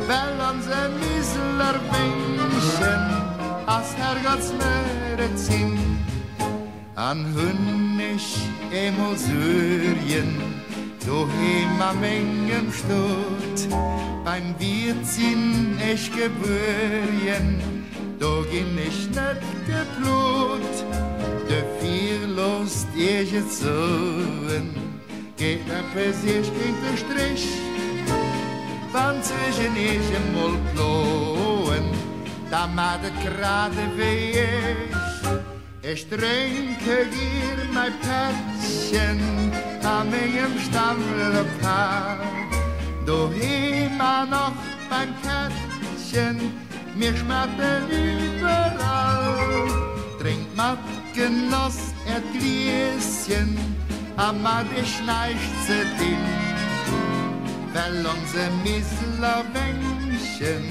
Well onse Miseler Wéngchen ass Herrgottsmedezin. An hunn ech eemol Suergen doheem a mengem Stot, beim Wiert sinn ech gebuergen, do ginn ech net geplot. Dofir loosst iech et soen, geet eppes iech géint de Strich, wann d'Suergen iech emol ploen, da mat et grad ewéi ech. Ech drénke gier mäi Pättchen a mengem Stammlokal, doheem an och beim Kättchen, mir schmaten iwwerall. Drénkt mat Genoss äert Glieschen a mat iech näischt ze dinn, well onse Miseler Wéngchen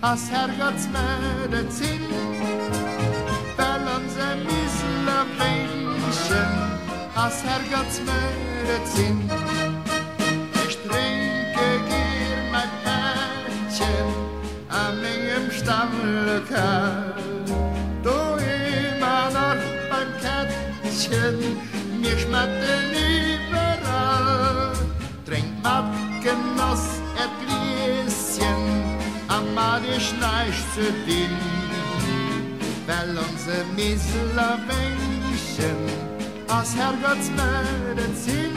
Ass Herrgottsmedezin, well onse Miseler Wéngchen ass Herrgottsmedezin. Ech drénke gier mäi Pättchen a mengem Stammlokal, doheem an och beim Kättchen, mir schmatten iwwerall. Drénkt mat Genoss äert Glieschen a mat iech näischt ze dinn, well onse Miseler Wéngchen ass Herrgottsmedezin.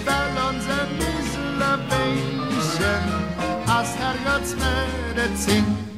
Well onse Miseler Wéngchen ass Herrgottsmedezin.